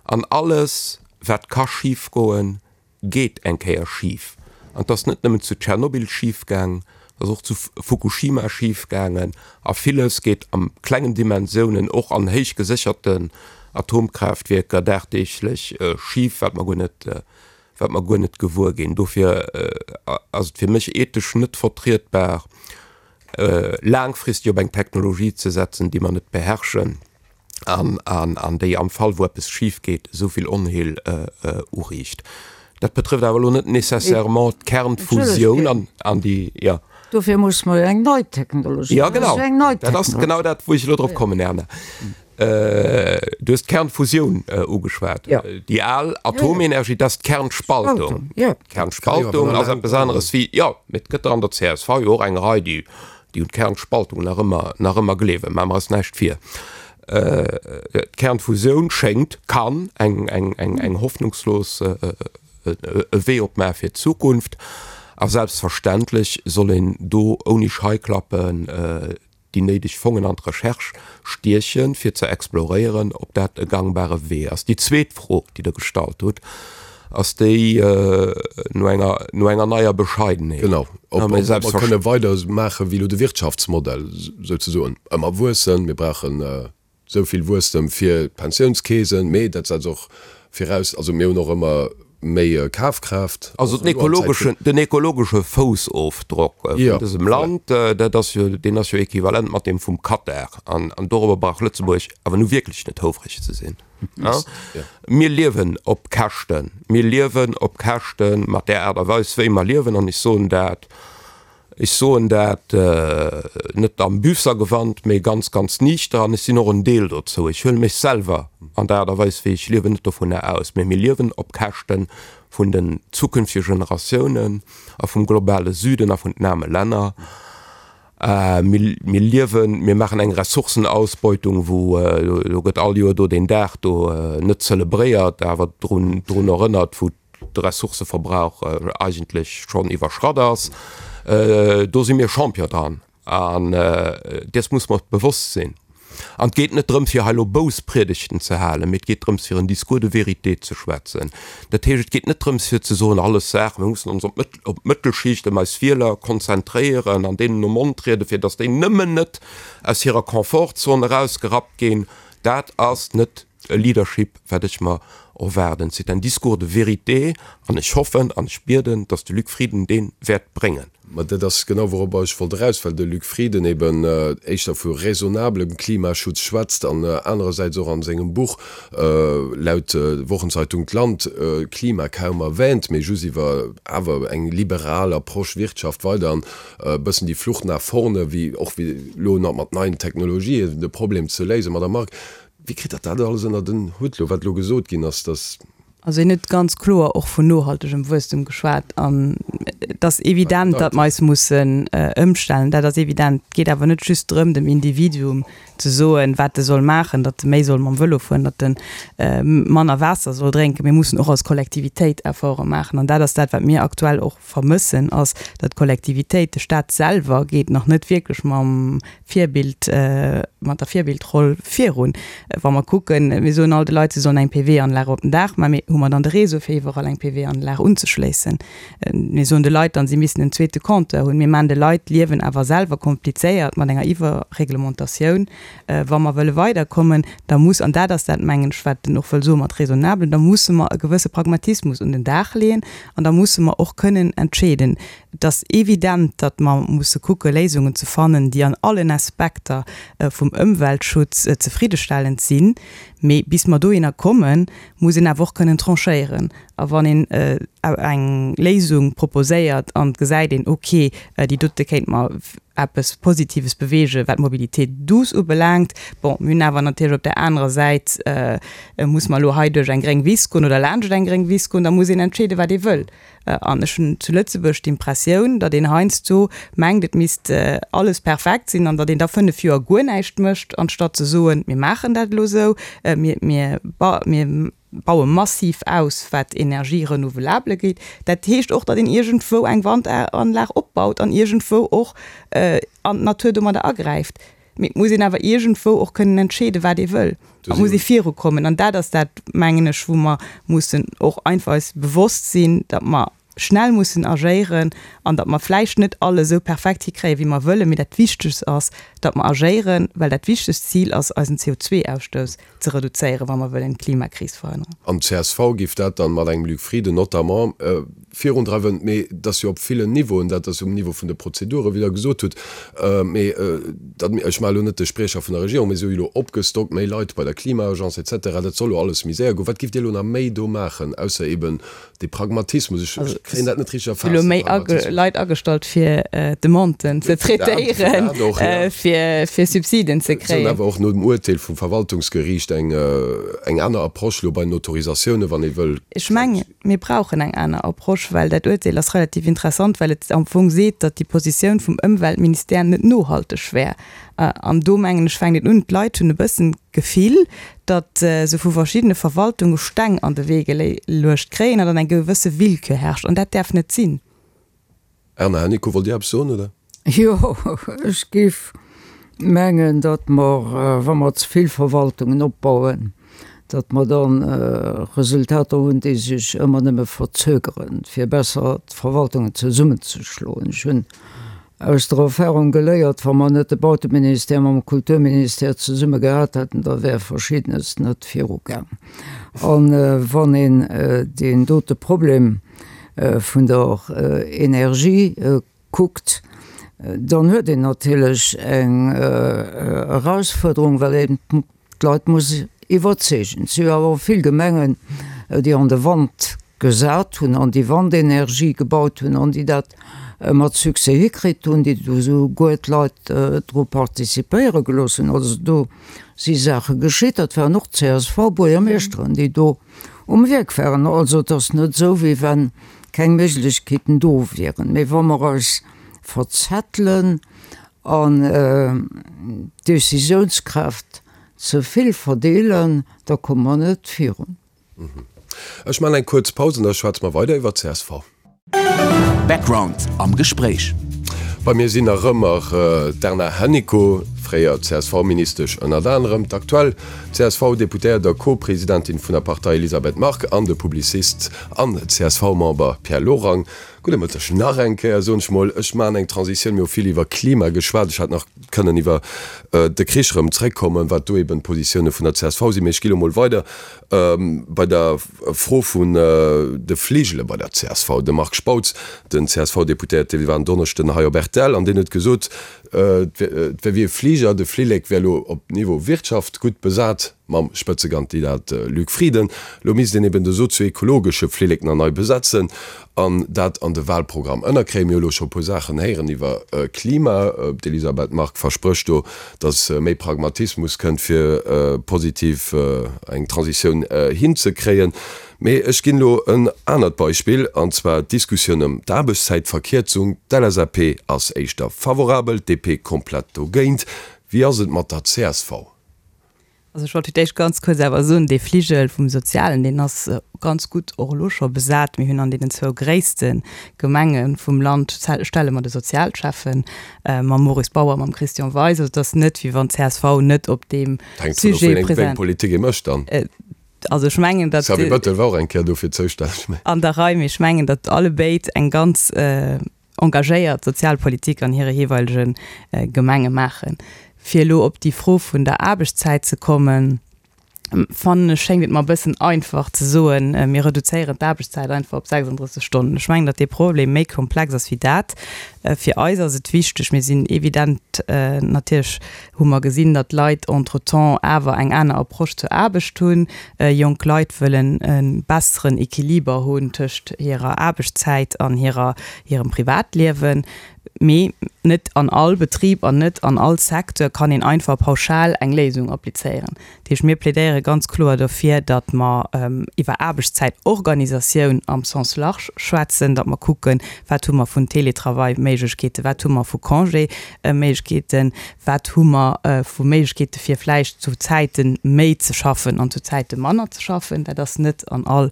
An alles, wat ka schifgoen, geet eng Kéier schif. An et ass net nëmmen zu Tschernobyl schif gaang, et ass och zu Fukushima schif gaangen. A villes geet a klengen Dimensiounen, och an héich gesécherten Atomkraaftwierker dagdeeglech schif, wat mer guer net, wat mer guer net gewuer ginn. Dofir ass et fir mech ethesch net vertrietbar, laangfristeg op eng Technologie ze setzen, déi mer net beherrschen an, an, an déi am Fall, wou eppes schif geet, esou vill Onheel uriicht. Dat betrëfft awer elo net nécessairement d'Kernfusioun an, an déi, jo.
Dofir musse mer jo eng nei Technologie.
Jo, genau. Dat ass genau dat, wou ech elo drop kommen, Erna. Du hues d'Kernfusioun ugeschwat. Déi al Atomenergie, dat ass d'Kernspaltung. D'Kernspaltung ass eppes aneres wéi, jo, mee et gëtt der an der csv jo och eng Rei, déi déi un d'Kernspaltung nach ëmmer, nach ëmmer gleewen. Maache mer eis näischt vir. D'Kernfusioun schéngt, kann eng, eng, eng, eng hoffnungslos e Wee opmaache fir d'Zukunft. A selbstverständlech soll een do ouni Scheiklappen déi néideg Fongen an d'Recherche stiechen, fir ze exploréieren, ob dat e gangbare Wee ass. Déi zweet Fro, déi Der gestallt hutt, ass déi no enger, no enger neier Bescheidenheet.
Genau, ob mer kënne weidermaache wéi elo de Wirtschaftsmodell souzesoen, ëmmer wuessen, mir brauchen esou vill Wuesstem fir d'Pensiounskeesen, mee dat setzt och viraus, also mir hunn och ëmmer méi Kafkraaft.
Also den ekologeschen, den ekologesche Foussofdrock vun dësem Land, dat ass jo, deen ass jo equivalent mat deem vum Katar. An dorobber brauch Lëtzebuerg awer nu wierklech net houfreg ze sinn. Mir liewen op Käschten, mir liewen op Käschte mat där Aart a Weis wéi mer liewen. An ech soen dat, Ech soen dat net am Büssergewand, mee ganz, ganz niichter an ech sinn och en Deel dozou. Ech huele mech selwer an der Aart a Weis, wéi ech liewen, net dovunner aus. Mee mir liewen op Käschte vun den zukünftege Generatiounen a vum globale Süden a vun den aarme Länner. Mir liewen, mir maachen eng Ressourcenausbeutung, wou, do gëtt all Joer do deen Dag do net zelebréiert, awer drun erënnert, wou de Ressourcëverbrauch eigentlech schonn iwwerschratt ass. Do si mir Champion dran an dees muss mer bewosst sinn. An et geet net drëms, fir hei elo Bousspriedegten ze halen, mee et geet drëms, fir en Discours de vérité ze schwätzen. Dat heescht, et geet net drëms, fir ze soen, alles Saach, mir mussen ons op d'Mëttelschicht, ëm eis Wieler konzentréieren an deenen nom Mond rieden, fir datt déi nëmmen net aus hirer Confortzon erausgerappt ginn. Dat ass net e Leadership, wat ech mer erwaarden. C'est un discours de vérité an ech hoffen an ech bieden, dass de Luc Frieden dee wäert bréngen.
Mä dat ass genau, wouropper ech wollt eraus, well de Luc Frieden eben éischter vu raisonnablem Klimaschutz schwätzt an anerersäits och a sengem Buch, laut Wochenzeitung d'Land, Klima kaum erwähnt, mee just iwwer awer eng liberal Approche Wirtschaft weider an e bëssen déi Flucht nach vorne, wéi och wéi elo nach mat neien Technologien de Problem ze léisen. Madame Margue, Wéi kritt Der dat alles ënnert en Hutt elo, wat elo gesot ginn ass, dass.
Also hien huet ganz kloer och vun nohaltegem Wuesstem geschwat an. Et ass evident, datt mer eis mussen ëmstellen. Dat ass evident. Et geet awer net just drëm, dem Individuum ze soen, wat e soll maachen, datt e méi soll mam Vëlo fueren, datt e manner Waasser soll drénken. Mir mussen och als Kollektivitéit Efforte maachen. An dat ass dat, wat mir aktuell och vermëssen, ass, datt d'Kollektivitéit, de Staat selwer geet nach net wierklech mam Virbild, mat der Virbildroll virun. Wa mer kucken, mir soen all de Leit, se sollen eng PV-Anlag op den Daach maachen, mee hu mer dann de Réseau fir iwwerall eng PV-Anlag unzeschléissen? Mir soen de Leit dann, si missten en zweete Compteur hunn. Mir maachen de Leit d'Liewen awer selwer komplizéiert mat enger Iwwerreglementatioun. Wa mer wëlle weiderkommen, da muss, an dat ass dat, mengen ech, wat en och wëll soe mat raisonnable, da musse mer e gewësse Pragmatismus un den Dag leeën an da musse mer och kënnen entscheeden. Et ass evident, datt mer musse kucke Léisungen ze fannen, déi an allen Aspekter vum Ëmweltschutz zefriddestellend sinn. Mee bis mer dohinner kommen, muss een awer och kënnen tranchéieren. A wann een eng Léisung proposéiert an et gesäit een, ok, déi dote kéint mer eppes Positives beweegen, wat d'Mobilité douce ubelaangt, bon, mir hunn awer natierlech op där anerer Säit, muss mer elo hei duerch eng gréng Wiss goen oder laanscht eng gréng Wiss goen, da muss een entscheeden, wat ee wëll. An ech hunn zu Lëtzebuerg d'Impressioun, datt een heiansdo mengt, et misst alles perfekt sinn an datt een da 5 Joer guer näischt mécht, anstatt ze soen, mir maachen dat elo esou, mir, mir, mir baue massiv aus, wat Energie renouvelable geet. Dat heescht och, datt een iergendwou eng Wandanlag opbaut an iergendwou och an d'Natur domadder agräift. Mee et muss een awer iergendwou och kënnen entscheeden, wat ee wëll. Et muss ee virukommen. An dat ass dat, mengen ech, wou mer mussen och einfach eis bewosst sinn, datt mer schnell mussen agéieren an datt mer vläicht net alles esou perfekt hikréien, wéi mer wëllen. Mee dat Wichtegst ass, datt mer agéieren, well dat wichtegst Zil ass, eisen CO2-Ausstouss ze reduzéieren, wa mer wëllen d'Klimakris verhënneren.
An csv géif dat dann mat engem Luc Frieden notamment virundreiwen. Mee et ass jo op villen Niveauen, dat ass um Niveau vun de Prozeduren, wéi Der gesot hutt, mee dat, ech maache elo net de Spriecher vun der Regierung, mee se hu jo elo opgestockt, méi Leit bei der Klima-Agence et cetera, dat soll elo alles méi séier goen. Wat géift Dir elo nach méi do maachen, ausser eben Dee Pragmatismus, ech kréien dat net richteg
erfaasst. Elo méi Leit agestallt fir Demanden ze traitéieren, fir Subsiden ze kréien.
Awer och no dem Urteel vum Verwaltungsgeriicht eng aner Approche elo bei den Autorisatiounen, wann ee wëll.
Ech mengen, mir brauchen eng aner Approche, well dat Urteel ass relativ interessant, well et am Fong seet, datt déi Positioun vum Ëmweltministère net nohalteg wär. An do, mengen ech, fänkt et un, d'Leit hunn e bëssen d'Gefill, datt se vu verschiddene Verwaltunge Steng an de Wee geluecht kréien an datt eng gewësse Willkür herrscht. An dat däerf net sinn.
Erna Hennicot, wollt Dir eppes soen, oder?
Jo, ech géif mengen, datt mer, wa mer ze vill Verwaltungen opbauen, datt mer da Resultater hunn, déi sech ëmmer nëmme verzögeren, fir besser d'Verwaltungen zesummenzeschloen. Ech hunn aus der Erfahrung geléiert, wa mer net de Bauteministère mam Kulturministère zesumme gehat hätten, da wär Verschiddenes net virugaang. A wann een deen dote Problem vun der Energie kuckt, dann huet een natierlech eng Erausfuerderung, well een d'Leit muss iwwerzeegen. Et si jo awer och vill Gemengen, déi an de Wand gesat hunn, an déi Wandenergie gebaut hunn an déi dat mat Succès hikritt hunn, déi do souguer d'Leit dru participéiere gelooss hunn. Also do si Saache geschitt. Dat waren och CSV-Buergermeeschteren, déi do um Wierk waren. Also et ass net esou, wéi wa keng Méiglechkeeten do wieren. Mee wa mer eis verzettelen an d'Décisiounskraaft ze vill verdeelen, da komme mer net virun.
Ech maachen eng kuerz Paus an da schwätze mer weider iwwer csv.
Background am Gespréich.
Bei mir sinn nach ëmmer d'Erna Hennicot, fréier CSV-Ministesch ënnert anerem, d'aktuell CSV-Deputéiert a Co-Presidentin vun der Partei Elisabeth Margue an de Publicist an CSV-Member Pierre Lorang. Gudde Mëtteg nach eng Kéier, soen ech mol. Ech maachen eng Transitioun. Mir hu vill iwwer Klima geschwat. Ech hätt nach kënnen iwwer de Krich erëm zréckkommen, wat do eben d'Positioune vun der csv sinn. Mee ech gi lo mol weider bei der Fro vun de Fligele bei der csv. De Marc Spautz, den CSV-Deputéierte, war en Donneschden hei op rtl an deen huet gesot, et wär wéi e Fliger, de Flillek wär lo op Niveau Wirtschaft gutt besat. Mam Spëtzekandidat Luc Frieden. Lo misst een eben de sozio-ekologesche Flillek nach nei besetzen an dat an de Wahlprogramm ënnerkréien. Mir hu lo scho e puer Saachen héieren iwwer Klima. D'Elisabeth Margue versprécht do, datt méi Pragmatismus kënnt, fir positiv eng Transitioun hinzekréien. Mee ech ginn elo en anert Beispill, an zwar d'Diskussioun ëm d'Aarbechtszäitverkierzung. D'LSAP ass éischter favorabel, d'DP komplett dogéint. Wéi ass et mat der csv?
Also ech wollt fir d'éischt ganz kuerz awer soen, dee Fligel vum Sozialen, deen ass ganz gutt och elo scho besat. Mir hunn an deenen zwou gréisste Gemenge vum Land stelle mer de Sozialschäffen, mam Maurice Bauer, mam Christian Weis. Also et ass net, wéi wann d'CSV net op deem
Hänkt dovun of,
Sujet
wéi eng Politik ee mécht dann.
Also ech mengen, datt.
Xavier Bettel war och eng Kéier dofir zoustänneg.
An der Rei, mee ech mengen, datt allebéid eng ganz engagéiert Sozialpolitik an hire jeeweilege Gemenge maachen. Fir elo op déi Fro vun der Aarbechtszäit ze kommen, fannen ech, schéngt et mer e bëssen einfach ze soen, mir reduzéieren d'Aarbechtszäit einfach op 36 Stonnen. Ech mengen, datt dee Problem méi komplex ass wéi dat. Fir eis ass et wichteg, mir sinn evident natierlech hu mer gesinn, datt d'Leit entretemps awer eng aner Approche zur Aarbecht hunn. Jonk Leit wëllen e besseren Equiliber hunn tëscht hirer Aarbechtszäit an hirer, hirem Privatliewen. Mee net an all Betrib an net an all Secteur kann een einfach pauschal eng Léisung applizéieren. Dat heescht, mir plädéiere ganz kloer dofir, datt mer iwwer Aarbechtszäitorganisatioun am Sens large schwätzen, datt mer kucken, wat hu mer vun Télétravail-Méiglechkeeten, wat hu mer vu Congé-Méiglechkeeten, wat hu mer vu Méiglechkeete fir vläicht zu Zäite méi ze schaffen an zu Zäite manner ze schaffen. Dat ass net an all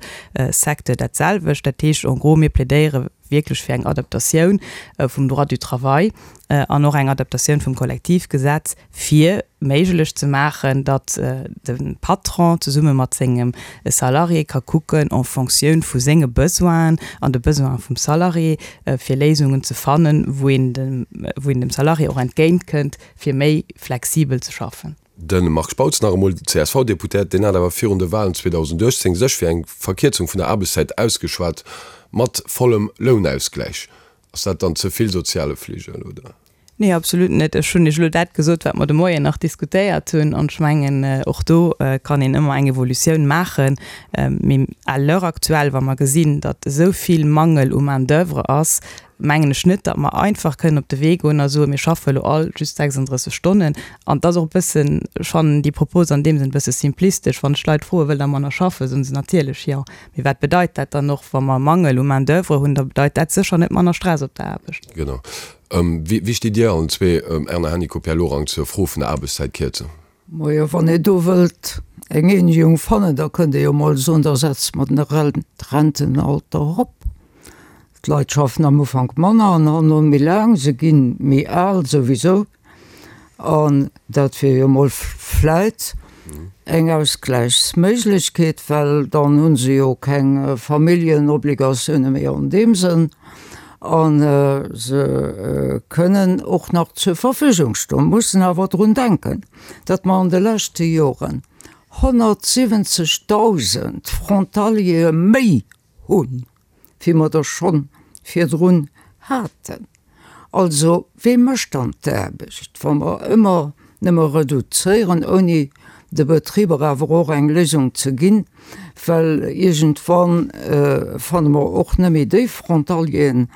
Secteur dat selwecht. Dat heescht en gros, mir plädéiere wierklech fir eng Adaptatioun vum Droit du travail an och eng Adaptatioun vum Kollektivgesetz, fir méiglech ze maachen, datt de Patron zesumme mat sengem Salarié ka kucken, en Fonctioun vu senge Besoinen an de Besoine vum Salarié, fir Léisungen ze fannen, wou een dem, wou een dem Salarié och entgéintkënnt, fir méi flexibel ze schaffen.
De Marc Spautz nach emol, CSV-Deputéiert, deen hat awer virun de Walen 2018 sech fir eng Verkierzung vun der Aarbechtszäit ausgeschwat, mat vollem Lounausgläich. Ass dat dann ze vill soziale Fligel, oder?
Nee, absolut net. Ech hunn Iech elo dat gesot, wat mer de Moien nach diskutéiert hunn. An ech mengen, och do kann een ëmmer eng Evolutioun maachen. Mee à l'heure actuelle, wa mer gesinn, datt esou vill Mangel u Main-d'oeuvre ass, mengen ech net, datt mer einfach kënnen op de Wee goen a soen, mir schaffe elo all just 36 Stonnen. An et ass och e bëssen, ech fannen déi Propos an deem Sënn e bësse simplistesch. Wann ech d'Leit froen, wëllt Der manner schaffen, soen se natierlech jo. Mee wat bedeit dat dann och, wa mer Mangel u Main-d'oeuvre hunn? Da bedeit dat sécher net manner Stress op der Aarbecht.
Genau. Wéi stitt Dir allen zwee, Erna Hennicot, Pierre Lorang, zur Fro vun der Aarbechtszäitkierzung?
Majo, wann ee do wëllt eng Eenegung fannen, da kënnt ee jo mol soen, da setze mer den Rentenalter erop. D'Leit schaffen am Ufank manner an herno méi laang, se gi méi al souwisou. An dat wier jo mol vläit eng Ausgläichsméiglechkeet, well dann hu se jo keng Familljenobligatiounen méi an deem Sënn a se kënnen och nach zur Verfügung stoen. Mussen awer drun denken, datt mer an de leschte Joren 170.000 Frontaliere méi hunn, wéi mer der schonn virdrun haten. Also, wee mécht dann d'Aarbecht, wa mer ëmmer nëmme reduzéieren, ouni de Betriber awer och eng Léisung ze ginn? Well iergendwann fanne mer och net méi déi Frontalieren,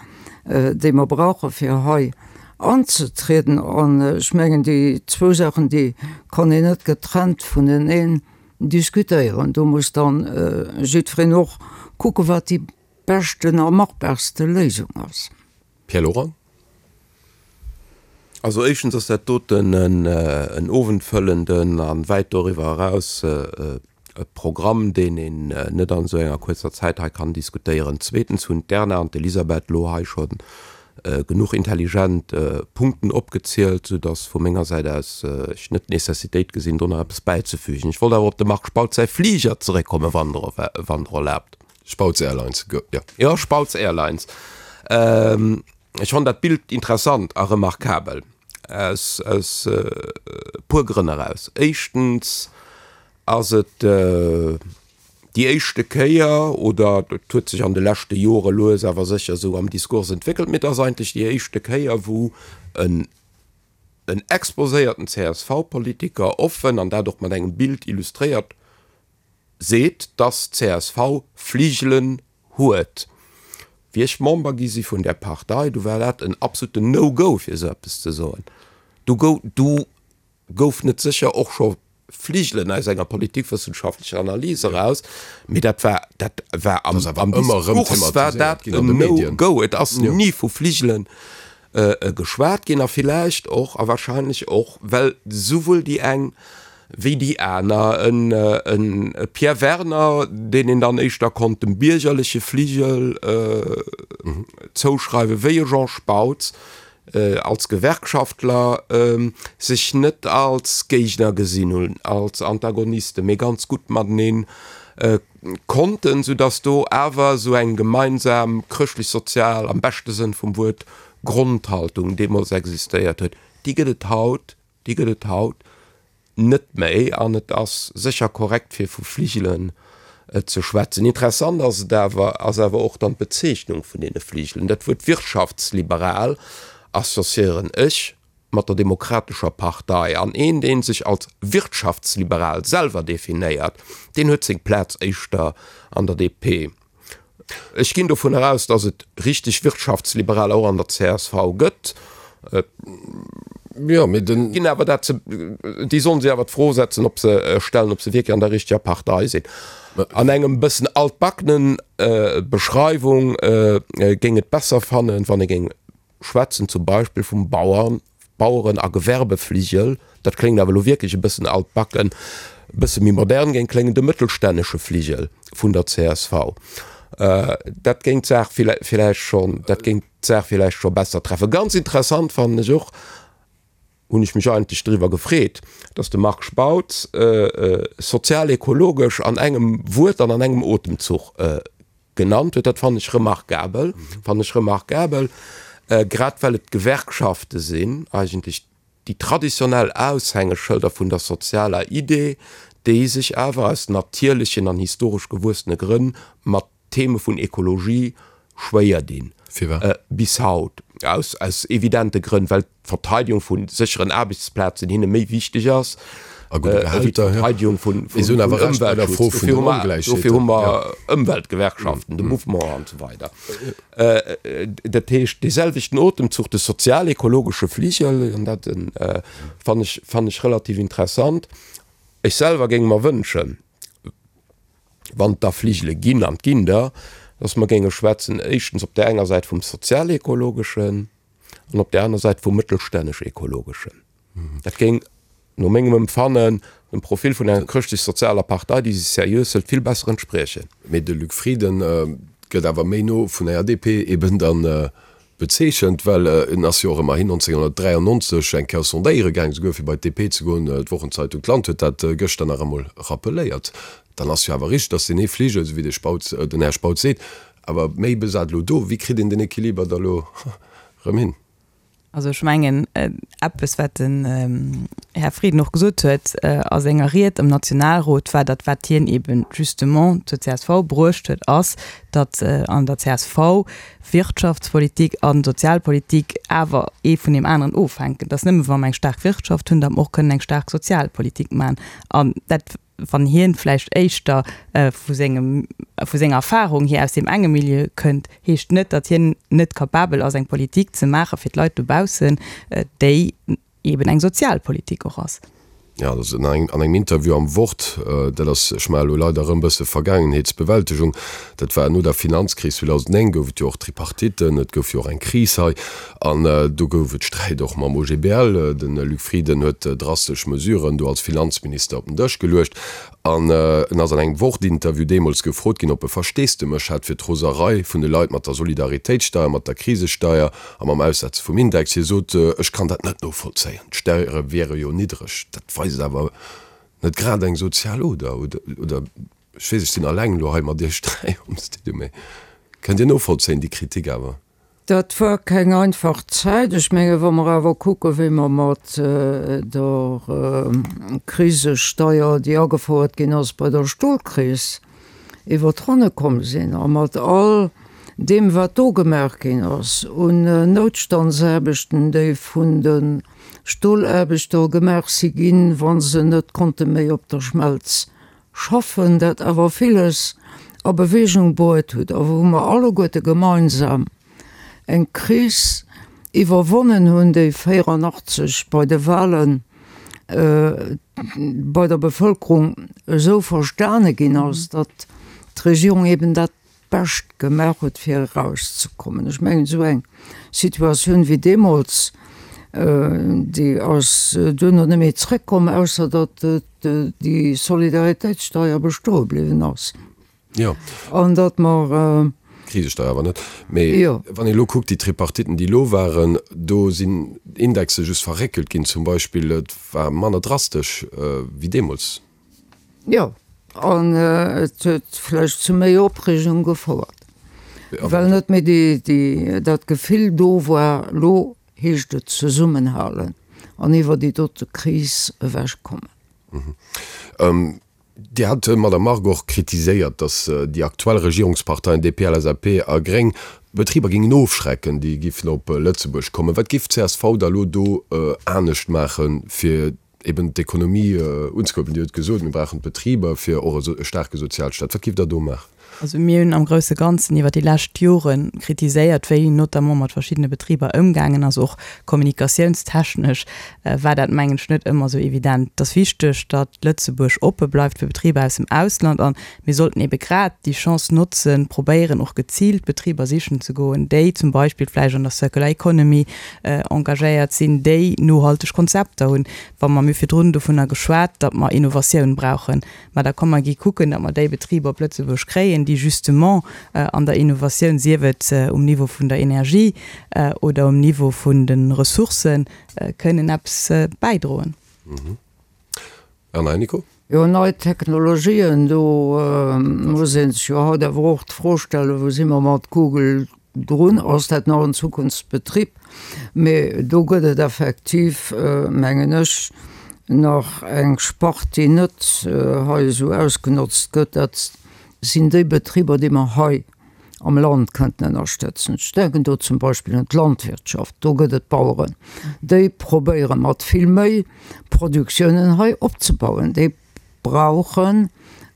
déi mer brauche fir hei anzetrieden. An ech mengen, déi zwou Saachen, déi kann een net getrennt vuneneen diskutéieren. Do muss dann jiddwereen och kucken, wat déi beschten a machbarste Léisung ass.
Pierre Lorang.
Also éischtens ass dat doten en owendfëllenden a wäit doriwwer eraus e Programm, deen een net an esou enger kuerzer Zäit hei kann diskutéieren. Zweetens hunn d'Erna an d'Elisabeth elo hei scho genuch intelligent Punkten opgezielt, soudass vu menger Säit aus ech net d'Nécessitéit gesinn, do nach eppes bäizefügen. Ech wollt awer op dem Marc Spautz säi Fliger zeréckkommen, wann Der erlaabt.
Spautz Airlines, jo.
Jo, Spautz Airlines. Ech fannen dat Bild interessant a remarkabel aus e puer Grënn eraus. Éischtens ass et déi éischte Kéier, oder et huet sech an de leschte Jore lues awer sécher esou am Diskurs entwéckelt, mee et ass eigentlech déi éischte Kéier, wou en. en exposéierten CSV-Politiker offen, an dat och mat engem Bild illustréiert, seet, dass csv Fligelen huet. Wéi ech Member gi si vun där Partei, du war dat en absoluten No-Go fir esou eppes ze soen. Du gouf net sécher och scho Fligelen aus enger politikwëssenschaftlecher Analys eraus, mee dat war, dat war am, am Diskurs war dat en No-Go. Et ass ni vu Fligelen geschwat ginn a villäicht och a wahrscheinlech och, well souwuel déi eng wéi déi aner, en Pierre Werner, deen een dann éischter konnt dem biergerleche Fligel zouschreiwen, wéi e Jean Spautz, als Gewerkschaftler sech net als Géigner gesinn hunn, als Antagonisten, mee ganz gutt matenee konnten, soudass do awer esou eng gemeinsam chrëschtlech-sozial, am beschte Sënn vum Wuert, Grondhaltung deemools existéiert huet. Déi gëtt et haut, déi gëtt et haut net méi an et ass sécher korrekt fir vu Fligelen ze schwätzen. Interessant ass et awer, ass awer och dann d'Bezeechnung vun deene Fligelen. Dat Wuert wirtschaftsliberal associéieren ech mat der Demokratescher Partei an een dee sech als wirtschaftsliberal selwer definéiert, deen huet seng Plaz éischter an der DP. Ech ginn dovun eraus, datt et richteg Wirtschaftsliberaler och an der csv gëtt.
Jo, mee den.
Ginn awer dat ze, déi sollen sech awer d'Fro setzen, ob se, stellen, ob se wierklech an der richteger Partei sinn. An engem bëssen altbackenen Beschreiwung géing et besser fannen, wann ee géing schwätzen zum Beispill vum Bauern, Baueren a Gewerbefligel, dat kléngt awer elo wierklech e bëssen altbacken, e bësse méi modern géing kléngen, de mëttelstännesche Fligel vun der csv. Dat géing d'Saach villäicht schonn, dat géing d'Saach villäicht scho besser treffen. Ganz interessant fannen ech och, hunn ech mech eigentlech driwwer gefreet, datt de Marc Spautz sozial-ekologesch an engem Wuert an an engem Otemzuch genannt huet, dat fannen ech remarkabel, fannen ech remarkabel, grad well et d'Gewerkschafte sinn, eigentlech déi traditionell Aushängeschëlder vun der sozialer Idee, déi sech awer aus natierlechen an historesch gewuessene Grënn mat Theme vun Ekologie schwéier dinn.
Firwat?
Bis haut, aus, aus evidente Grënn, well d'Verteidigung vu sécheren Aarbechtsplazen hinne méi wichteg ass wéi d'Verteidigung vun Ëmweltschutz. Dofir hu mer Ëmweltgewerkschaften, de Mouvement an esou weider. Dat heescht, dee selwechten Otemzuch, de sozial-ekologesche Fligel, an dat fannen ech, fannen ech relativ interessant. Ech selwer géing mer wënschen, wann et da Fligele ginn, an et ginn der, datt mer géinge schwätzen, éischtens op där enger Säit vum sozial-ekologeschen, an op där aner Säit vum mëttelstännesch-ekologeschen. Dat géing no mengem Empfannen dem Profil vun enger chrëschtlech-sozialer Partei, déi sech seriös hëlt, vill besser entspriechen.
Mee de Luc Frieden gëtt awer méi no vun enger DP eben dann bezeechent, well en ass jo och ëmmerhin 1993 eng Kéier sondéiere gaang, souguer fir bei d'DP ze goen. D'Wochenzeitung D'Land huet dat gëschter nach emol rappeléiert. Dann ass jo awer richteg, datt deen ee Fligel, esou wéi de Spautz, den Här Spautz seet, awer méi besat elo do. Wéi kritt een den Equiliber da lo erëm hin?
Also ech mengen, eppes wat den Här Frieden och gesot huet a senger Ried am Nationalrot, war datt wat hien eben justement zur csv bruecht huet, ass, datt an der csv Wirtschaftspolitik a Sozialpolitik awer ee vun deem aneren ofhänken, datt nëmme wa mer eng staark Wirtschaft hunn, datt mer och kënnen eng staark Sozialpolitik maachen. An dat wann hien vläicht éischter vu sengem, vu senger Erfahrung hier aus deem enge Milieu kënnt, heescht net, datt hien net capabel ass eng Politik ze maache fir d'Leit dobaussen, déi eben eng Sozialpolitik och ass.
Jo, dat ass an engem Interview am Wort, dat ass, ech maache elo leider erëm e bësse Vergaangenheetsbewältegung, dat war no der Finanzkris 2009, gouf et jo och Tripartitten, et gouf jo och eng Kris hei An do gouf et Sträit och mam OGBL. De Luc Frieden huet drastesch Mesuren do als Finanzminister op den Dësch geluecht. An en ass an engem Wort-Interview deemools gefrot ginn, ob e Versteesdemech hätt fir d'Roserei vun de Leit mat der Solidaritéitssteier, mat der Krisesteier a mam Aussetze vum Index. Hie sot, Ech kann dat net novollzéien, d'Steiere wiere jo niddreg. Dat weist awer net grad eng sozial Oder, oder? Ech weess, ech sinn alleng elo hei mat Iech 3 am Studio, mee kënnt Dir novollzéien déi Kritik awer?
Dat war keng einfach Zäit. Ech menge wa mer awer kucke wéi mer mat der Krisesteier, déi agefouert ginn ass bei der Stolkris, iwwer d'Ronne komm sinn a mat all deem wat do gemaach ginn ass un Noutstandsaarbechten, déi vun de. Stolaarbechter gemaach si ginn, wa se net konnte méi op der Schmelz schaffen, dat awer villes a Bewegung bruet huet a wou mer alleguerte gemeinsam eng Kris iwwerwonnen hunn, déi 84 bei de Wahlen bei der Bevëlkerung esou verstane ginn ass, datt d'Regierung eben dat Bescht gemaach huet fir erauszekommen. Ech mengen esou eng Situatioun wéi deemools, déi ass duerno net méi zrëckkomm, ausser datt déi Solidaritéitssteier bestoe bliwwen ass.
Jo.
An datt mer.
D'Krisesteier awer net. Mee wann een elo kuckt, déi Tripartiten, déi elo waren, do sinn Indexe just verréckelt ginn zum Beispill. Et war manner drastesch wéi deemools.
Jo, an et huet vläicht zu méi Opreegung gefouert, well net méi déi, dat Gefill do war, lo heescht et zesummenhalen an iwwer déi dote Kris ewechkommen.
Dir hat, Madamm Margue, och kritiséiert, datt déi aktuell Regierungsparteien DP, LSAP a Gréng d'Betriber géingen ofschrecken, déi giffen op Lëtzebuerg kommen. Wat géif d'CSV da elo do anescht maachen, fir eben d'Ekonomie unzekuerbelen. Dir hutt gesot, mir brauchen d'Betriber fir och e staarke Sozialstaat. Wat géift Der do maachen?
Also mir hunn am grousse Ganzen iwwer déi lescht Jore kritiséiert, wéi notamment mat verschiddene Betriber ëmgaangen ass. Och kommunikatiounstechnesch war dat, mengen ech, net ëmmer esou evident. Et ass wichteg, datt Lëtzebuerg oppe bleift fir Betriber aus dem Ausland a mir sollten ebe grad déi Chance notzen, probéieren och geziilt Betriber sichen ze goen, déi zum Beispill vläicht an der Circular Economy engagéiert sinn, déi nohalteg Konzepter hunn. Wa mer, mir hu virdrun dovunner geschwat, datt mer Innovatioun brauchen, mä da komm mer gi kucken, datt mer déi Betriber op Lëtzebuerg kréien, déi justement an der Innovatioun, sief et um Niveau vun der Energie oder um Niveau vun de Ressourcen, kënnen eppes bäidroen.
Erna Hennicot.
Jo, nei Technologien, do muss ee sech jo haut awer och d'Fro stellen, wou si mer mat Google drun? Ass dat nach en Zukunftsbetrib? Mee do gëtt et effektiv, mengen ech, nach eng Spart, déi net hei esou ausgenotzt gëtt. Dat sinn déi Betriber, déi mer hei am Land kënnten ënnerstëtzen. Ech denken do zum Beispill un d'Landwirtschaft, do gëtt et Baueren, déi probéiere mat vill méi Produktiounen hei opzebauen, déi brauchen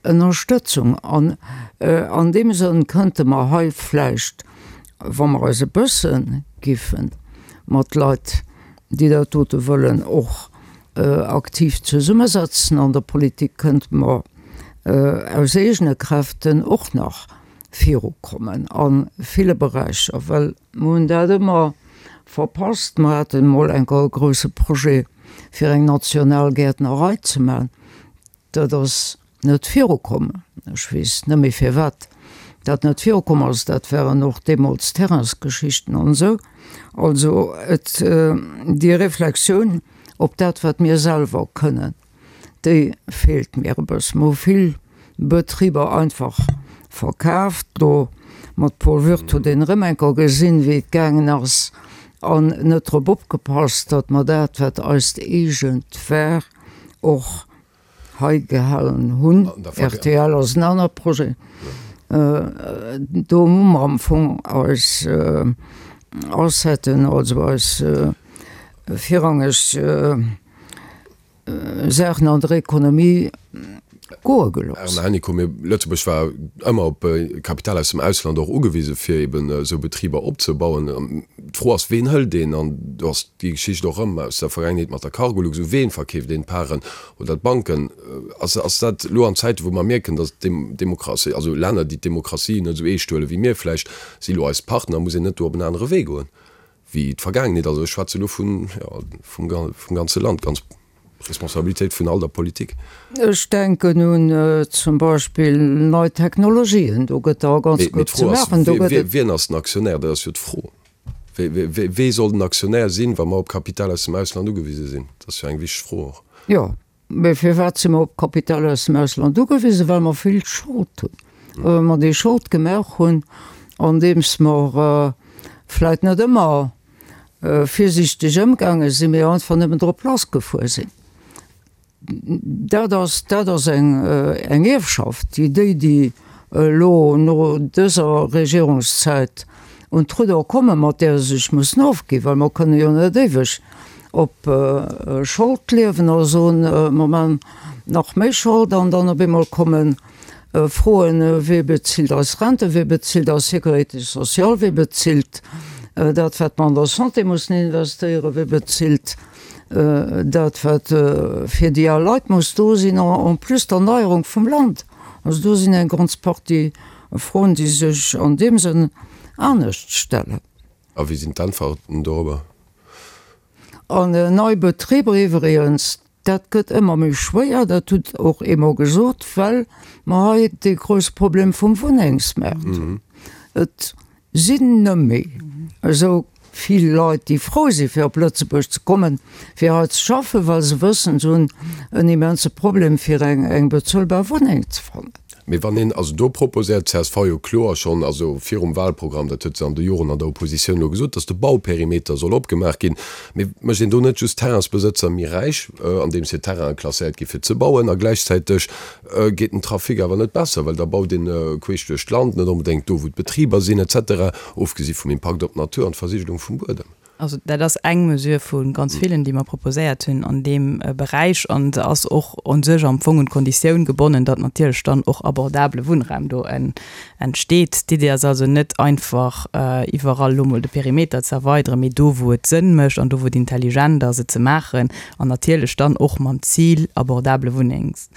Ënnerstëtzung. An an deem Sënn kënnte mer hei vläicht, wa mer eis e bësse giffe mat Leit, déi dat dote wëllen, och aktiv zesummesetzen an der Politik, kënnte mer aus eegene Kräften och nach virukommen a ville Beräicher, well mer hunn dat ëmmer verpasst. Mer haten emol eng Kéier e grouse Projet, fir eng national Gäertnerei ze maachen. Dat ass net virukomm. Ech weess net méi firwat dat net virukomm ass. Dat waren och deemools Terrainsgeschichten an esou. Also et, déi Reflexioun op dat, wat mir selwer kënnen, Déi feelt mir e bëssen. Mer hu vill Betriber einfach verkaaft. Do mat Paul Würth huet een erëm eng Kéier gesinn, wéi et gaangen ass an net drop opgepasst, datt mer dat, wat eist eegent war, och hei gehalen hunn. Rtl ass en anere Projet. Do hu mer am Fong eis Asseten, also eis virrangeg, Saachen an der Ekonomie goe gelooss.
Erna Hennicot, Mee Lëtzebuerg war ëmmer op Kapital aus dem Ausland och ugewise fir eben esou Betriber opzebauen. D'Fro ass, ween hëlt een? An do ass déi Geschicht och erëm aus der Vergaangenheet mat der Cargolux, u ween verkeeft een d'Paren oder d'Banken? Ass ass dat elo an Zäiten, wou mer mierken, datt d'Demokratie, also Länner, déi d'Demokratie net esou eescht huele wéi mir vläicht, si elo eis Partner, muss een net do op en anere Wee goen? Wéi d'Vergaangenheet, also ech schwätze elo vun, jo, vum, vum ganze Land, ganz Responsabilitéit vun all der Politik.
Ech denken un zum Beispill nei Technologien, do gëtt der ganz
gutt ze maachen. Mee d'Fro ass, wien ass den Aktionär? Dat ass jo d'Fro. Wee soll den Aktionär sinn, wa mer op Kapital aus dem Ausland ugewise sinn? Dat ass jo eng wichteg Fro och.
Jo, Mee firwat si mer op Kapital aus dem Ausland ugewisen? Well mer vill Schold hunn. Well mer déi Schold gemaach hunn, andeems mer vläit net ëmmer virsiichteg ëmgaange sinn, mee einfach nëmmen drop lassgefuer sinn. Dat ass, dat ass eng, eng Ierfschaft, déi déi, déi elo no dëser Regierungszäit un d'Rudder kommen, mat där se sech mussen ofginn, well mer kënne jo net éiweg. op Schold liewen a soen, mer man nach méi Schold an dann op eemol komme Froen, Wee bezilt eis Renten, wee bezilt eis Sécurité sociale, wee bezilt dat, wat mer an der Santé mussen investéieren, wee bezilt dat, wat fir déi al Leit muss do sinn, en plus d'Erneierung vum Land. Also do sinn eng ganz Partie Froen, déi sech an deem Sënn anescht stellen.
A wéi sinn d'Äntwerten dorobber?
An nei Betriber iwwregens, dat gëtt ëmmer méi schwéier, dat hutt och eemol gesot, well mer hei dee grousse Problem vum Wunnengsmaart hunn. Et sinn nëmme esou vill Leit, déi frou si fir op Lëtzebuerg ze kommen, fir hei ze schaffen, well se wëssen, se hunn en immense Problem fir eng bezuelbar Wunneng ze fannen.
Mee wann een, also do proposéiert d'CSV jo kloer schonn, also virum Wahlprogramm, dat huet se an de Joren an der Oppositioun elo gesot, datt de Bauperimeter soll opgemaach ginn. Mee mécht een do net just d'Terrainsbesëtzer méi räich, andeems hir Terrainen klasséiert gi fir ze bauen, a gläichzäiteg geet den Trafic awer net besser, well da baut een queesch duerch d'Land, net onbedéngt do wou d'Betriber sinn et cetera, ofgesi vum Impakt op d'Natur an d'Versigelung vum Buedem.
Also dat ass eng Mesure vu ganz villen, déi mer proposéiert hunn an deem Beräich. An se ass och u sech am Fong un d'Konditioun gebonnen, datt natierlech dann och abordabele Wunnraum do entsteet. D'Idee ass also net einfach iwwerall elo mol de Perimeter ze erweideren, mee do wou et Sënn mécht an do wou et intelligent ass et ze maachen an natierlech dann och mam Zil abordabele Wunnengs,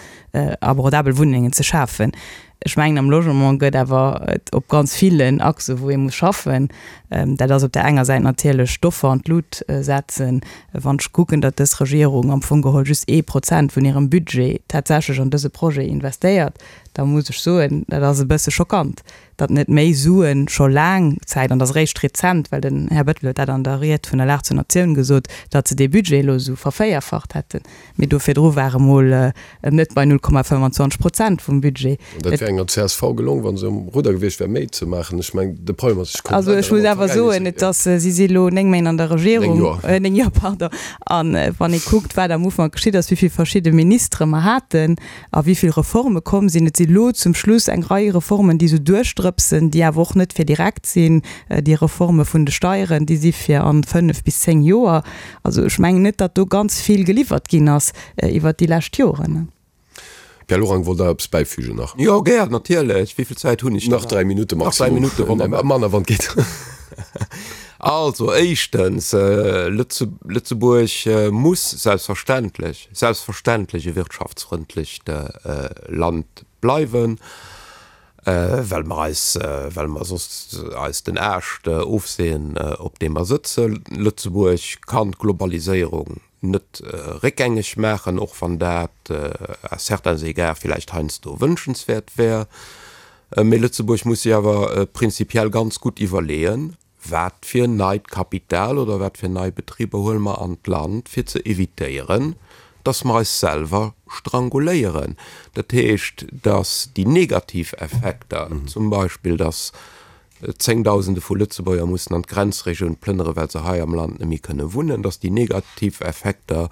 abordabel Wunnengen ze schafen. Ech mengen, am Logement gëtt awer et op ganz villen Achsen, wou ee muss schaffen. Dat ass op där enger Säit natierlech d'Offer an d'Lut setzen. Wann ech kucken, datt dës Regierung am Fong geholl just ee Prozent vun hirem Budget tatsächlech an dëse Projet investéiert, da muss ech soen, dat ass e bësse schockant, datt net méi Suen scho laang Zäit, an dat ass eréischt rezent, well den Här Bettel huet dat an der Ried vun der Lag zur Natioun gesot, datt se dee Budget elo esou vervéierfacht hätten. Mee do virdru war e mol net bei 0,25 Prozent vum Budget.
An dat wär enger csv gelong, wa se um Rudder gewiescht wär, méi ze maachen. Ech mengen, de Problem ass, ech kommen
Also ech muss awer soen, et ass, si si elo 9 Méint an der Regierung.
9 Joer.
9 Joer, pardon. A wann ee kuckt, wat am Ufank geschitt ass, wéi vill verschidde Ministere mer haten a wéi vill Reforme komm sinn, et si lo zum Schluss eng Rei Reformen, déi esou duerchdrëpsen, déi awer och net fir direkt sinn. Déi Reforme vun de Steieren, déi si fir an 5 bis 10 Joer. Also ech mengen net, datt do ganz vill geliwwert ginn ass iwwert déi lescht Joren.
Pierre Lorang, wollt Der eppes bäifügen nach?
Jo, gär, natierlech. Wéi vill Zäit hunn ech
dann nach? Nach 3 Minutte maximum. Nach 3 Minutte, wonnerbar. Manner, wann et geet.
Also, éischtens, Lëtzebuerg muss selbstverständlech, selbstverständlech e wirtschaftsfrëndlecht Land bleiwen. Well mer eis, well mer soss eis den Aascht ofseeën, op deem mer sëtzen. Lëtzebuerg kann d'Globaliséierung net réckgängeg maachen, och wann dat à certains égards villäicht heiansdo wënschenswäert wär. Mee Lëtzebuerg muss sech awer prinzipiell ganz gutt iwwerleeën, Wat fir neit Kapital oder wat fir nei Betriber huele mer an d'Land, fir ze evitéieren, dass mer eis selwer stranguléieren? Dat heescht, dass déi negativ Effekter, zum Beispill dass Zéngdausende vu Lëtzebuerger mussen an d'Grenzregioun plënnere well se hei am Land net méi kënne wunnen, dass déi negativ Effekter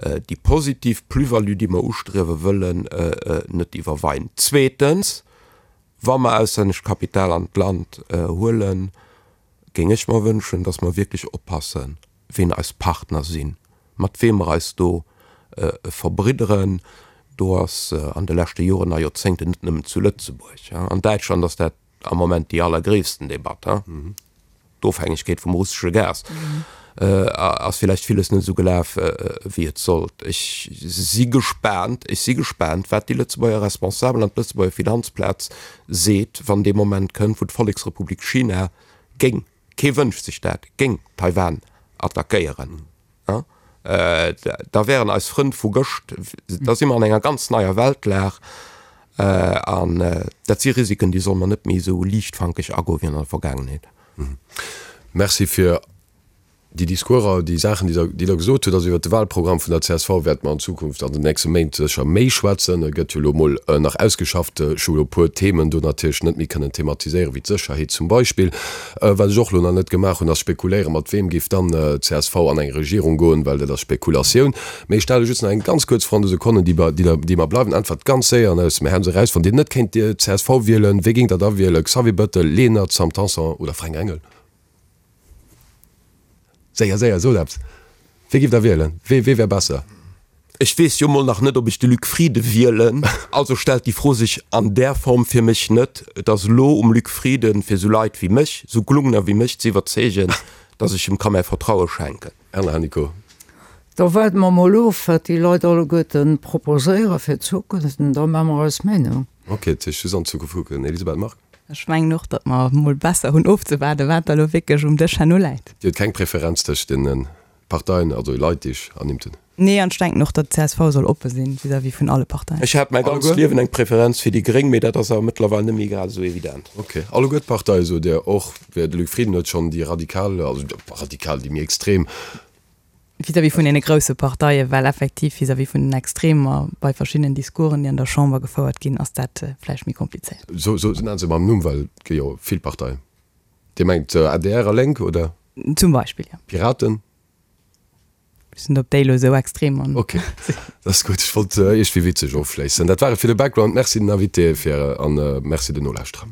déi positiv Plus-value, déi mer ustriewe wëllen, net iwwerweien. Zweetens, Wa mer auslännescht Kapital an d'Land huelen, géing ech mer wënschen, dass mer wierklech oppassen, ween eis Partner sinn, mat weem mer eis do verbridderen. Do ass an de leschte Joren a Joerzéngten, net nëmmen zu Lëtzebuerg, an Däitschland ass dat am Moment déi allergréissten Debatt, D'Ofhängegkeet vum russesche Gas ass villäicht villes net esou gelaf, wéi et sollt. Ech si gespaant, ech si gespaant, wat déi Lëtzebuerger Responsabel an d'Lëtzebuerger Finanzplaz seet, wann dee Moment kënnt, wou d'Volleksrepublik China géing, kee wënscht sech dat, géing Taiwan attackéieren. Da wären eis Frënn vu gëscht, da si mer an enger ganz neier Weltlag an dat si Risiken, déi solle mer net méi esou liichtfankeg agoe wéi an der Vergaangenheet.
Merci fir déi Discourser, déi Saachen, déi Der gesot hutt. Also iwwert de Wahlprogramm vun der csv wäerte mer an Zukunft an den nächste Méint sécher méi schwätzen. E gëtt jo elo emol nach ausgeschafft. Ech hu elo e puer Themen do natierlech net méi kënnen thematiséieren, wéi d'Sécherheet zum Beispill. Wat ech och elo nach net gemaach hunn, ass spekuléieren, mat weem géif dann csv an eng Regierung goen, well dat ass Spekulatioun. Mee ech stelle just nach eng ganz kuerz Fro an de Sekonnen, déi déi mer bleiwen. Äntwert ganz séier an aus dem Häerz eraus, Wann Dir net kéint csv wielen, wee géingt Der da wielen, Xavier Bettel, Lenert, Sam Tanson oder Fränk Engel? Séier, séier, sot eppes! Wee giff Der wielen? Wee wee wär besser?
Ech weess jo mol nach net, ob ech de Luc Frieden wielen, also stellt déi Fro sech an där Form fir mech net. Et ass elo um Luc Frieden, fir esou Leit wéi mech, esou Glungner wéi mech ze iwwerzeegen, datt ech em ka mäi Vertraue schenken.
Erna Hennicot.
Da waarde mer mol of, wat déi Leit alleguerten proposéiere fir d'Zukunft, an da maache mer eis Meenung.
Ok, dat heescht just an d'Zukunft kucken. Elisabeth Margue.
Ech mengen och, datt mer mol besser hunn ofzewaarden, wat da elo wierklech um Dësch herno läit.
Dir hutt keng Preferenz tëscht deene Parteien, also Leit, déi ech ernimmt hunn?
Nee, an ech denken och, datt d'CSV soll oppe sinn vis-à-vis vun alle Parteien.
Ech hat mäi ganzt Liewen eng Preferenz fir déi Gréng, mee dat ass awer mëttlerweil net méi grad esou evident.
Ok. Alleguer d'Parteie sot Dir och? De Luc Frieden huet schonn déi radikal, also radikal, déi méi extrem.
Vis-à-vis vun deene grousse Parteien, well effektiv vis-à-vis vun den Extremer bei verschiddenen Discoursen, déi an der Chamber gefouert ginn, ass dat vläicht méi komplizéiert.
So, so, nennen se mam Numm, well et gi jo vill Parteien. Dir mengt adr a Lénk, oder?
Zum Beispill, jo.
Piraten?
Ech sinn op déi elo esou extrem an.
Ok, dat ass gutt. Ech wollt iergendwéi witzeg ofschléissen. Dat war et fir de Background. Merci den Invitéë fir an merci den Nolauschterer.